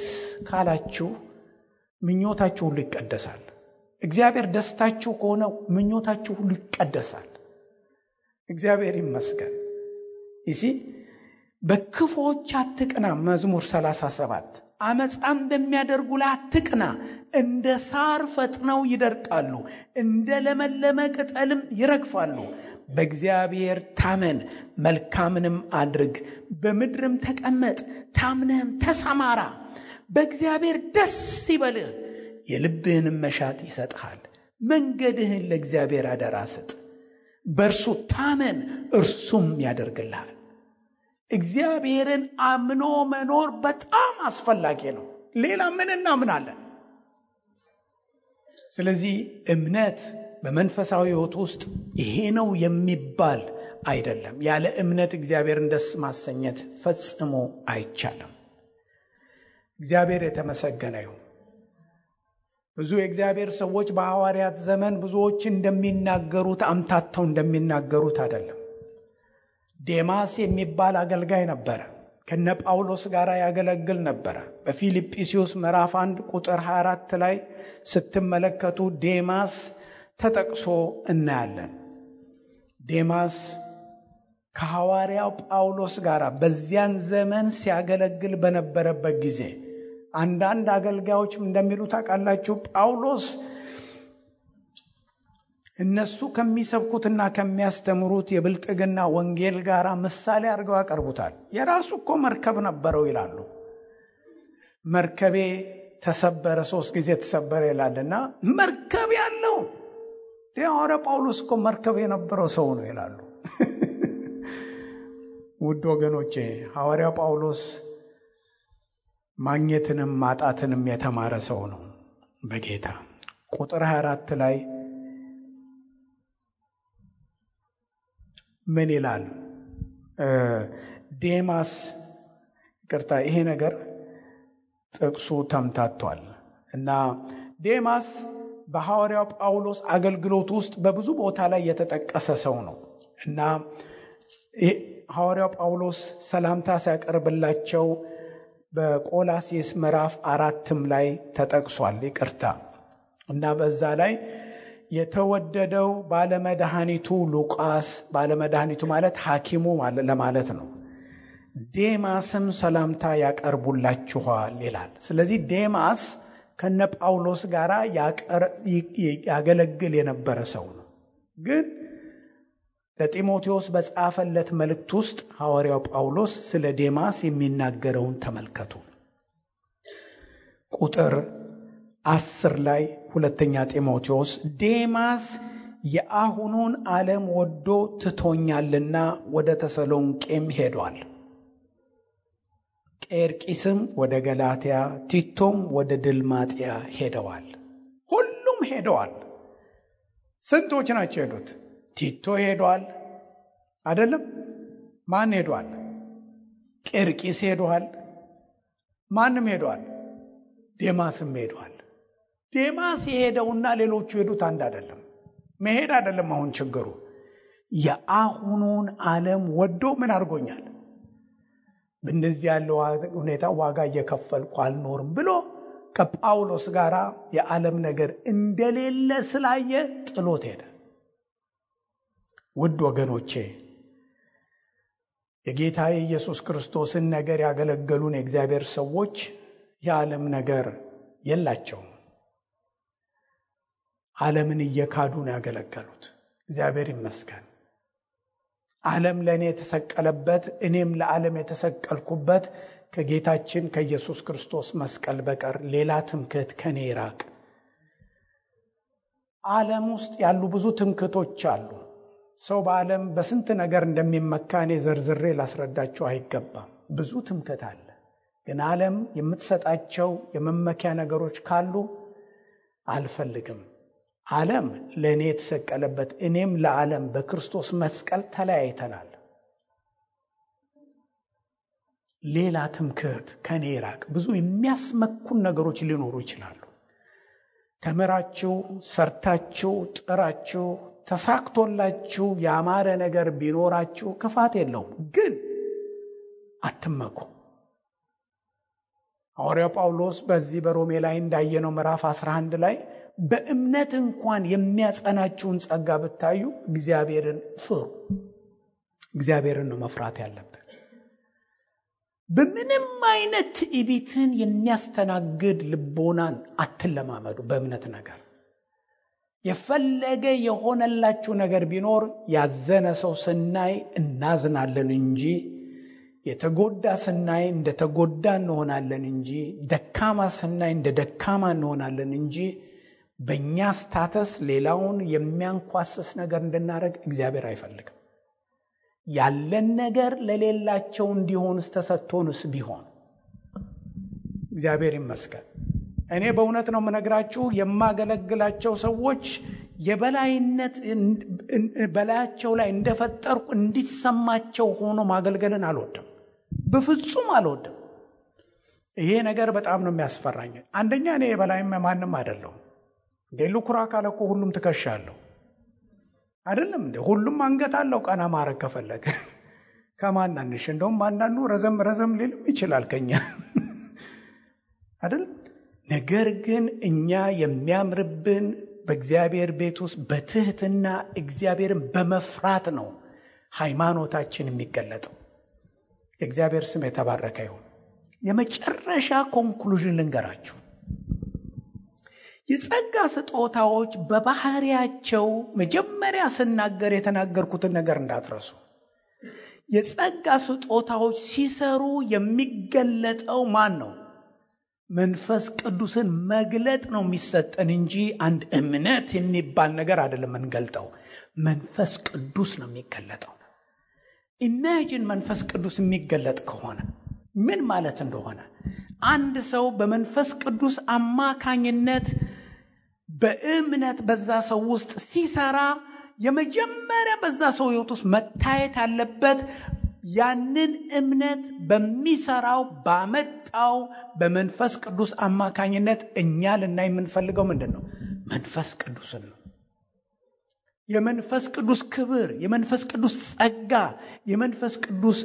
ካላችሁ ምኞታችሁ ሁሉ ይቀደሳል። እግዚአብሔር ደስታችሁ ከሆነ ምኞታችሁ ሁሉ ይቀደሳል። እግዚአብሔር ይመስገን። በክፎች አትቅና። መዝሙር 37 አመፃም በሚያደርጉ ላይ አትቅና። እንደ ሳር ፈጥነው ይደርቃሉ፣ እንደ ለመለመ ቅጠልም ይረግፋሉ። በእግዚአብሔር ታመን፣ መልካምንም አድርግ፣ በምድርም ተቀመጥ፣ ታምነህም ተሰማራ። በእግዚአብሔር ደስ ይበልህ፣ የልብህንም መሻት ይሰጥሃል። መንገድህን ለእግዚአብሔር አደራ ስጥ፣ በእርሱ ታመን፣ እርሱም ያደርግልሃል። እግዚአብሔርን አምኖ መኖር በጣም አስፈላጊ ነው። ሌላ ምን እናምናለን? ስለዚህ እምነት በመንፈሳዊ ሕይወት ውስጥ ይሄ ነው የሚባል አይደለም። ያለ እምነት እግዚአብሔርን ደስ ማሰኘት ፈጽሞ አይቻልም። እግዚአብሔር የተመሰገነ ይሁን። ብዙ የእግዚአብሔር ሰዎች በሐዋርያት ዘመን ብዙዎች እንደሚናገሩት አምታተው እንደሚናገሩት አይደለም። ዴማስ የሚባል አገልጋይ ነበረ። ከነ ጳውሎስ ጋር ያገለግል ነበረ። በፊልጵስዩስ ምዕራፍ 1 ቁጥር 24 ላይ ስትመለከቱ ዴማስ ተጠቅሶ እናያለን። ዴማስ ከሐዋርያው ጳውሎስ ጋር በዚያን ዘመን ሲያገለግል በነበረበት ጊዜ አንዳንድ አገልጋዮች እንደሚሉት ታውቃላችሁ፣ ጳውሎስ እነሱ ከሚሰብኩትና ከሚያስተምሩት የብልጥግና ወንጌል ጋር ምሳሌ አድርገው ያቀርቡታል። የራሱ እኮ መርከብ ነበረው ይላሉ። መርከቤ ተሰበረ፣ 3 ጊዜ ተሰበረ ይላልና መርከብ ያለው ሐዋርያ ጳውሎስ እኮ መርከብ የነበረው ሰው ነው ይላሉ። ውድ ወገኖቼ ሐዋርያ ጳውሎስ ማግኘትንም ማጣትንም የተማረ ሰው ነው በጌታ። ቁጥር 24 ላይ ምን ይላል? ዴማስ ይቅርታ፣ ይሄ ነገር ጥቅሱ ተምታቷል እና ዴማስ በሐዋርያው ጳውሎስ አገልግሎት ውስጥ በብዙ ቦታ ላይ የተጠቀሰ ሰው ነው እና ሐዋርያው ጳውሎስ ሰላምታ ሲያቀርብላቸው በቆላስይስ ምዕራፍ 4 ላይ ተጠቅሷል። ይቅርታ እና በዛ ላይ የተወደደው ባለመድኃኒቱ ሉቃስ፣ ባለመድኃኒቱ ማለት ሐኪሙ ለማለት ነው፣ ዴማስም ሰላምታ ያቀርቡላችኋል ይላል። ስለዚህ ዴማስ ከነ ጳውሎስ ጋር ያገለግል የነበረ ሰው ነው። ግን ለጢሞቴዎስ በጻፈለት መልእክት ውስጥ ሐዋርያው ጳውሎስ ስለ ዴማስ የሚናገረውን ተመልከቱ። ቁጥር 10 ላይ ሁለተኛ ጢሞቴዎስ ዴማስ የአሁኑን ዓለም ወዶ ትቶኛልና ወደ ተሰሎንቄም ሄዷል። ቄርቂስም ወደ ገላትያ፣ ቲቶም ወደ ድልማጥያ ሄደዋል። ሁሉም ሄደዋል። ስንቶች ናቸው ሄዱት? ቲቶ ሄዷል አይደለም? ማን ሄዷል? ቄርቂስ ሄዷል። ማንም ሄዷል? ዴማስም ሄዷል። ዴማስ የሄደውና ሌሎቹ ሄዱት አንድ አይደለም። መሄድ አይደለም አሁን ችግሩ። የአሁኑን ዓለም ወዶ ምን አድርጎኛል? በእንደዚህ ያለው ሁኔታ ዋጋ እየከፈልኩ አልኖርም ብሎ ከጳውሎስ ጋር የዓለም ነገር እንደሌለ ስላየ ጥሎት ሄደ። ውድ ወገኖቼ የጌታ የኢየሱስ ክርስቶስን ነገር ያገለገሉን የእግዚአብሔር ሰዎች የዓለም ነገር የላቸውም። ዓለምን እየካዱ ነው ያገለገሉት። እግዚአብሔር ይመስገን። ዓለም ለእኔ የተሰቀለበት እኔም ለዓለም የተሰቀልኩበት ከጌታችን ከኢየሱስ ክርስቶስ መስቀል በቀር ሌላ ትምክህት ከኔ ይራቅ። ዓለም ውስጥ ያሉ ብዙ ትምክህቶች አሉ። ሰው በዓለም በስንት ነገር እንደሚመካ እኔ ዘርዝሬ ላስረዳቸው አይገባም። ብዙ ትምክህት አለ። ግን ዓለም የምትሰጣቸው የመመኪያ ነገሮች ካሉ አልፈልግም። ዓለም ለእኔ የተሰቀለበት እኔም ለዓለም በክርስቶስ መስቀል ተለያይተናል። ሌላ ትምክህት ከኔ ይራቅ። ብዙ የሚያስመኩን ነገሮች ሊኖሩ ይችላሉ። ተምራችሁ፣ ሰርታችሁ፣ ጥራችሁ፣ ተሳክቶላችሁ ያማረ ነገር ቢኖራችሁ ክፋት የለውም። ግን አትመኩ። ሐዋርያው ጳውሎስ በዚህ በሮሜ ላይ እንዳየነው ምዕራፍ 11 ላይ በእምነት እንኳን የሚያጸናችሁን ጸጋ ብታዩ እግዚአብሔርን ፍሩ። እግዚአብሔርን ነው መፍራት ያለብን። በምንም አይነት ትዕቢትን የሚያስተናግድ ልቦናን አትለማመዱ። በእምነት ነገር የፈለገ የሆነላችሁ ነገር ቢኖር ያዘነ ሰው ስናይ እናዝናለን እንጂ የተጎዳ ስናይ እንደ ተጎዳ እንሆናለን እንጂ ደካማ ስናይ እንደ ደካማ እንሆናለን እንጂ በእኛ ስታተስ ሌላውን የሚያንኳስስ ነገር እንድናደርግ እግዚአብሔር አይፈልግም። ያለን ነገር ለሌላቸው እንዲሆንስ ተሰጥቶንስ ቢሆን እግዚአብሔር ይመስገን። እኔ በእውነት ነው የምነግራችሁ፣ የማገለግላቸው ሰዎች የበላይነት በላያቸው ላይ እንደፈጠርኩ እንዲሰማቸው ሆኖ ማገልገልን አልወድም፣ በፍጹም አልወድም። ይሄ ነገር በጣም ነው የሚያስፈራኝ። አንደኛ እኔ የበላይም ማንም አይደለሁም። ሉኩራ ካለ እኮ ሁሉም ትከሻለሁ አይደለም እንዴ? ሁሉም አንገት አለው ቀና ማረግ ከፈለገ። ከማናንሽ እንደውም አንዳንዱ ረዘም ሊልም ይችላል ከኛ አይደል? ነገር ግን እኛ የሚያምርብን በእግዚአብሔር ቤት ውስጥ በትህትና እግዚአብሔርን በመፍራት ነው ሃይማኖታችን የሚገለጠው። የእግዚአብሔር ስም የተባረከ ይሁን። የመጨረሻ ኮንክሉዥን ልንገራችሁ። የጸጋ ስጦታዎች በባህሪያቸው መጀመሪያ ስናገር የተናገርኩትን ነገር እንዳትረሱ። የጸጋ ስጦታዎች ሲሰሩ የሚገለጠው ማን ነው? መንፈስ ቅዱስን መግለጥ ነው የሚሰጠን እንጂ አንድ እምነት የሚባል ነገር አይደለም የምንገልጠው። መንፈስ ቅዱስ ነው የሚገለጠው። ኢማጂን መንፈስ ቅዱስ የሚገለጥ ከሆነ ምን ማለት እንደሆነ። አንድ ሰው በመንፈስ ቅዱስ አማካኝነት በእምነት በዛ ሰው ውስጥ ሲሰራ የመጀመሪያ በዛ ሰው ሕይወት ውስጥ መታየት አለበት ያንን እምነት በሚሰራው ባመጣው በመንፈስ ቅዱስ አማካኝነት እኛ ልናይ የምንፈልገው ምንድን ነው? መንፈስ ቅዱስን ነው። የመንፈስ ቅዱስ ክብር፣ የመንፈስ ቅዱስ ጸጋ፣ የመንፈስ ቅዱስ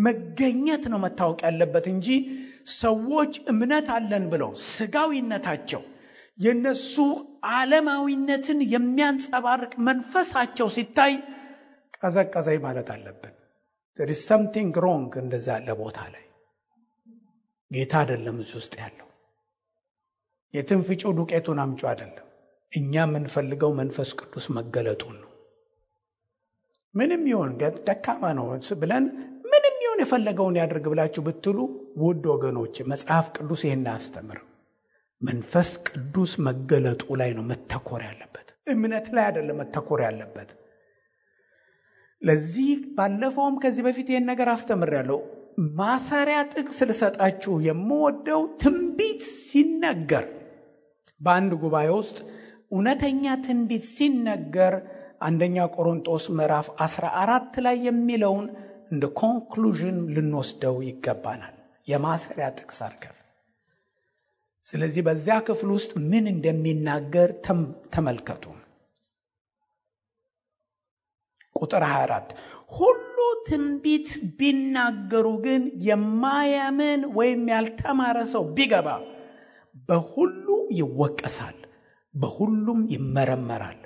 መገኘት ነው መታወቅ ያለበት እንጂ ሰዎች እምነት አለን ብለው ስጋዊነታቸው የነሱ ዓለማዊነትን የሚያንጸባርቅ መንፈሳቸው ሲታይ ቀዘቀዘኝ ማለት አለብን። there is something wrong እንደዛ ያለ ቦታ ላይ ጌታ አይደለም እዚህ ውስጥ ያለው። የትንፍጩ ዱቄቱን አምጩ አይደለም። እኛ የምንፈልገው መንፈስ ቅዱስ መገለጡን ነው። ምንም ይሁን ደካማ ነው ብለን ምንም ይሁን የፈለገውን ያድርግ ብላችሁ ብትሉ ውድ ወገኖች መጽሐፍ ቅዱስ ይሄን አስተምር። መንፈስ ቅዱስ መገለጡ ላይ ነው መተኮር ያለበት፣ እምነት ላይ አይደለም መተኮር ያለበት። ለዚህ ባለፈውም ከዚህ በፊት ይሄን ነገር አስተምሬያለሁ። ማሰሪያ ጥቅስ ልሰጣችሁ የምወደው ትንቢት ሲነገር በአንድ ጉባኤ ውስጥ እውነተኛ ትንቢት ሲነገር አንደኛ ቆሮንቶስ ምዕራፍ 14 ላይ የሚለውን እንደ ኮንክሉዥን ልንወስደው ይገባናል፣ የማሰሪያ ጥቅስ አድርገን። ስለዚህ በዚያ ክፍል ውስጥ ምን እንደሚናገር ተመልከቱ። ቁጥር 24 ሁሉ ትንቢት ቢናገሩ ግን የማያምን ወይም ያልተማረ ሰው ቢገባ በሁሉ ይወቀሳል፣ በሁሉም ይመረመራል፣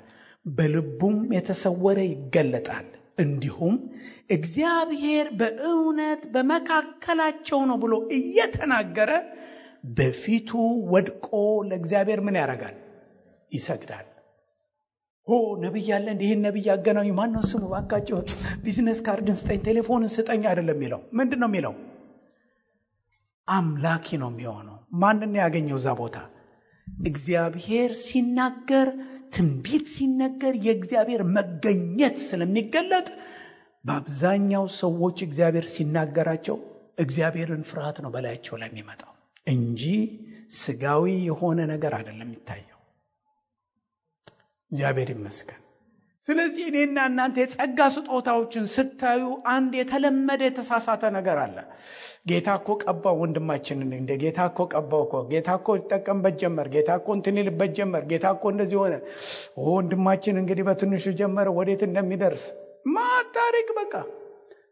በልቡም የተሰወረ ይገለጣል። እንዲሁም እግዚአብሔር በእውነት በመካከላቸው ነው ብሎ እየተናገረ በፊቱ ወድቆ ለእግዚአብሔር ምን ያደርጋል? ይሰግዳል። ነብይ ያለ ይሄን ነብይ ያገናኙ ማን ነው ስሙ? ባካቸው ቢዝነስ ካርድን ስጠኝ፣ ቴሌፎንን ስጠኝ አይደለም የሚለው። ምንድን ነው የሚለው? አምላኪ ነው የሚሆነው። ማንን ያገኘው እዛ ቦታ? እግዚአብሔር ሲናገር፣ ትንቢት ሲነገር የእግዚአብሔር መገኘት ስለሚገለጥ በአብዛኛው ሰዎች እግዚአብሔር ሲናገራቸው እግዚአብሔርን ፍርሃት ነው በላያቸው ላይ የሚመጣው እንጂ ስጋዊ የሆነ ነገር አይደለም የሚታየው። እግዚአብሔር ይመስገን። ስለዚህ እኔና እናንተ የጸጋ ስጦታዎችን ስታዩ አንድ የተለመደ የተሳሳተ ነገር አለ። ጌታ እኮ ቀባው ወንድማችንን፣ እንደ ጌታ እኮ ቀባው እኮ፣ ጌታ እኮ ይጠቀምበት ጀመር፣ ጌታ እኮ እንትን ይልበት ጀመር፣ ጌታ እኮ እንደዚህ ሆነ፣ ወንድማችን እንግዲህ በትንሹ ጀመረ ወዴት እንደሚደርስ ማታሪክ። በቃ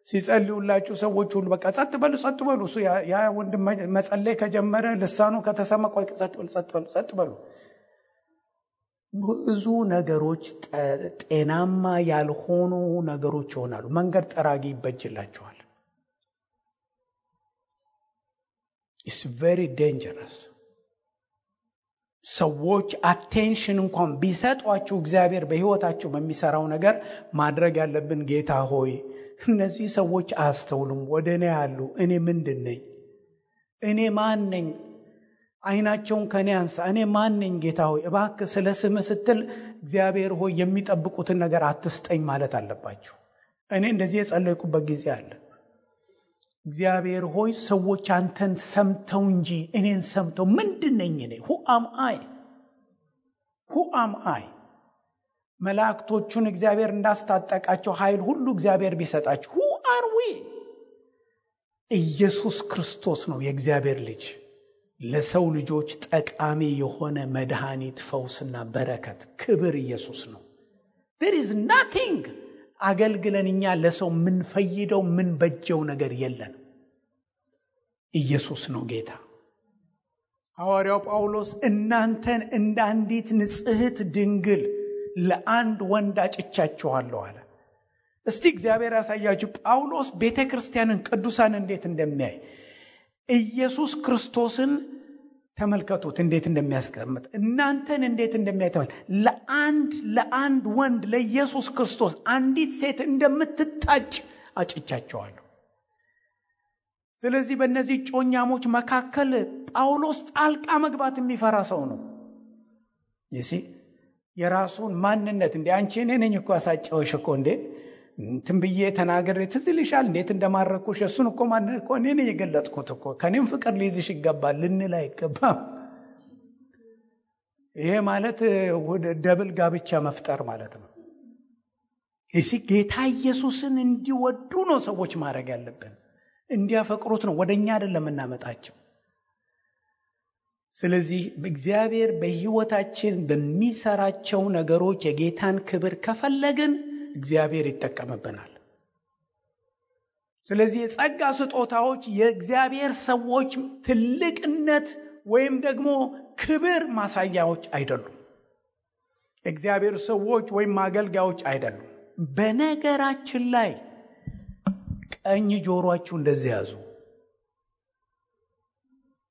ሲጸልዩላችሁ ሰዎች ሁሉ በቃ ጸጥ በሉ ጸጥ በሉ። እሱ ያ ወንድም መጸለይ ከጀመረ ልሳኑ ከተሰማ ቆይ ጸጥ በሉ ጸጥ በሉ ጸጥ በሉ። ብዙ ነገሮች ጤናማ ያልሆኑ ነገሮች ይሆናሉ። መንገድ ጠራጊ ይበጅላቸዋል። it's very dangerous። ሰዎች አቴንሽን እንኳን ቢሰጧችሁ እግዚአብሔር በሕይወታችሁ በሚሰራው ነገር ማድረግ ያለብን ጌታ ሆይ እነዚህ ሰዎች አስተውሉም፣ ወደ እኔ ያሉ፣ እኔ ምንድን ነኝ? እኔ ማን ነኝ? አይናቸውን ከኔ አንሳ፣ እኔ ማን ነኝ? ጌታ ሆይ እባክህ ስለ ስምህ ስትል እግዚአብሔር ሆይ የሚጠብቁትን ነገር አትስጠኝ ማለት አለባችሁ። እኔ እንደዚህ የጸለይኩበት ጊዜ አለ። እግዚአብሔር ሆይ ሰዎች አንተን ሰምተው እንጂ እኔን ሰምተው ምንድን ነኝ እኔ? who am I? መላእክቶቹን እግዚአብሔር እንዳስታጠቃቸው ኃይል ሁሉ እግዚአብሔር ቢሰጣቸው who are we? ኢየሱስ ክርስቶስ ነው የእግዚአብሔር ልጅ፣ ለሰው ልጆች ጠቃሚ የሆነ መድኃኒት፣ ፈውስና በረከት፣ ክብር ኢየሱስ ነው። there is nothing አገልግለን እኛ ለሰው ምን ፈይደው ምን በጀው ነገር የለን። ኢየሱስ ነው ጌታ። ሐዋርያው ጳውሎስ እናንተን እንደ አንዲት ንጽሕት ድንግል ለአንድ ወንድ አጭቻችኋለሁ አለ። እስቲ እግዚአብሔር ያሳያችሁ ጳውሎስ ቤተክርስቲያንን ቅዱሳን እንዴት እንደሚያይ። ኢየሱስ ክርስቶስን ተመልከቱት እንዴት እንደሚያስቀምጥ፣ እናንተን እንዴት እንደሚያተዋል። ለአንድ ወንድ ለኢየሱስ ክርስቶስ አንዲት ሴት እንደምትታጭ አጭቻቸዋለሁ። ስለዚህ በእነዚህ ጮኛሞች መካከል ጳውሎስ ጣልቃ መግባት የሚፈራ ሰው ነው። የራሱን ማንነት እንዴ አንቺ እኔ ነኝ እኮ አሳጨውሽ እኮ እንዴ ትንብዬ ተናገር ትዝ ይልሻል እንዴት እንደማረኩሽ እሱን እኮ ማንነት እኮ እኔ ነኝ የገለጥኩት እኮ ከኔም ፍቅር ሊይዝሽ ይገባል ልንል አይገባም። ይሄ ማለት ደብል ጋብቻ መፍጠር ማለት ነው። ጌታ ኢየሱስን እንዲወዱ ነው ሰዎች ማድረግ ያለብን፣ እንዲያፈቅሩት ነው፣ ወደኛ አይደለም እናመጣቸው። ስለዚህ እግዚአብሔር በሕይወታችን በሚሰራቸው ነገሮች የጌታን ክብር ከፈለግን እግዚአብሔር ይጠቀምብናል። ስለዚህ የጸጋ ስጦታዎች የእግዚአብሔር ሰዎች ትልቅነት ወይም ደግሞ ክብር ማሳያዎች አይደሉም። እግዚአብሔር ሰዎች ወይም አገልጋዮች አይደሉም። በነገራችን ላይ ቀኝ ጆሮአችሁ እንደዚህ ያዙ።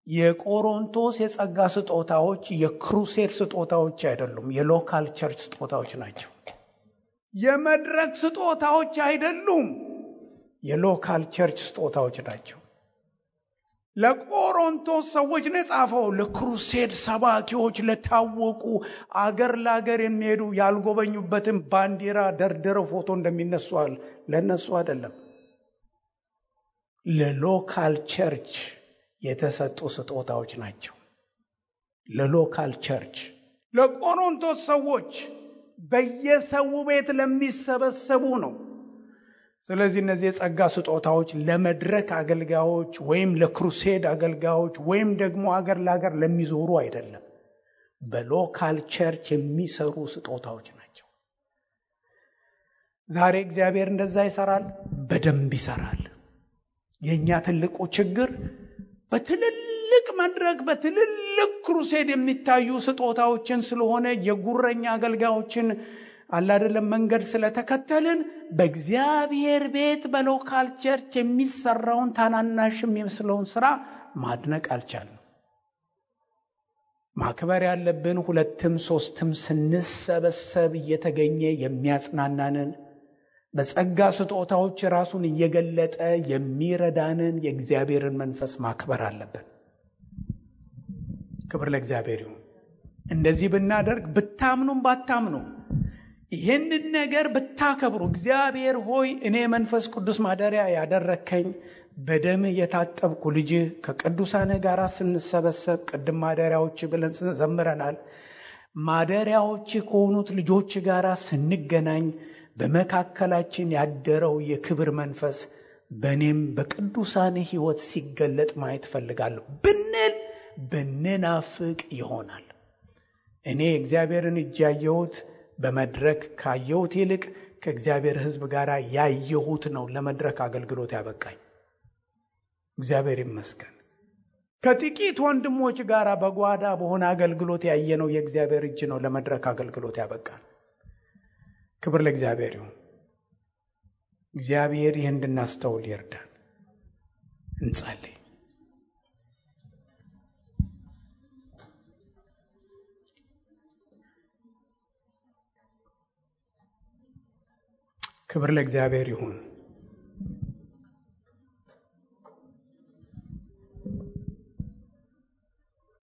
የቆሮንቶስ የጸጋ ስጦታዎች የክሩሴድ ስጦታዎች አይደሉም፣ የሎካል ቸርች ስጦታዎች ናቸው። የመድረክ ስጦታዎች አይደሉም፣ የሎካል ቸርች ስጦታዎች ናቸው። ለቆሮንቶስ ሰዎች ነው የጻፈው። ለክሩሴድ ሰባኪዎች፣ ለታወቁ አገር ለአገር የሚሄዱ ያልጎበኙበትን ባንዲራ ደርድረው ፎቶ እንደሚነሱዋል ለነሱ አይደለም። ለሎካል ቸርች የተሰጡ ስጦታዎች ናቸው። ለሎካል ቸርች ለቆሮንቶስ ሰዎች በየሰው ቤት ለሚሰበሰቡ ነው። ስለዚህ እነዚህ የጸጋ ስጦታዎች ለመድረክ አገልጋዮች ወይም ለክሩሴድ አገልጋዮች ወይም ደግሞ አገር ለአገር ለሚዞሩ አይደለም፣ በሎካል ቸርች የሚሰሩ ስጦታዎች ናቸው። ዛሬ እግዚአብሔር እንደዛ ይሰራል፣ በደንብ ይሰራል። የኛ ትልቁ ችግር በትልልቅ መድረክ በትልልቅ ክሩሴድ የሚታዩ ስጦታዎችን ስለሆነ የጉረኛ አገልጋዮችን አላደለም መንገድ ስለተከተልን በእግዚአብሔር ቤት በሎካል ቸርች የሚሰራውን ታናናሽ የሚመስለውን ስራ ማድነቅ አልቻልንም። ማክበር ያለብን ሁለትም ሶስትም ስንሰበሰብ እየተገኘ የሚያጽናናንን በጸጋ ስጦታዎች ራሱን እየገለጠ የሚረዳንን የእግዚአብሔርን መንፈስ ማክበር አለብን። ክብር ለእግዚአብሔር ይሁን። እንደዚህ ብናደርግ ብታምኑም ባታምኑም ይህንን ነገር ብታከብሩ እግዚአብሔር ሆይ እኔ መንፈስ ቅዱስ ማደሪያ ያደረከኝ በደም የታጠብኩ ልጅ ከቅዱሳን ጋር ስንሰበሰብ ቅድም ማደሪያዎች ብለን ዘምረናል። ማደሪያዎች ከሆኑት ልጆች ጋር ስንገናኝ በመካከላችን ያደረው የክብር መንፈስ በእኔም በቅዱሳን ሕይወት ሲገለጥ ማየት ፈልጋለሁ ብንናፍቅ ይሆናል። እኔ እግዚአብሔርን እጅ ያየሁት በመድረክ ካየሁት ይልቅ ከእግዚአብሔር ሕዝብ ጋር ያየሁት ነው ለመድረክ አገልግሎት ያበቃኝ። እግዚአብሔር ይመስገን። ከጥቂት ወንድሞች ጋር በጓዳ በሆነ አገልግሎት ያየነው የእግዚአብሔር እጅ ነው ለመድረክ አገልግሎት ያበቃን። ክብር ለእግዚአብሔር ይሁን። እግዚአብሔር ይህን እንድናስተውል ይርዳን። እንጸልይ። ክብር ለእግዚአብሔር ይሁን።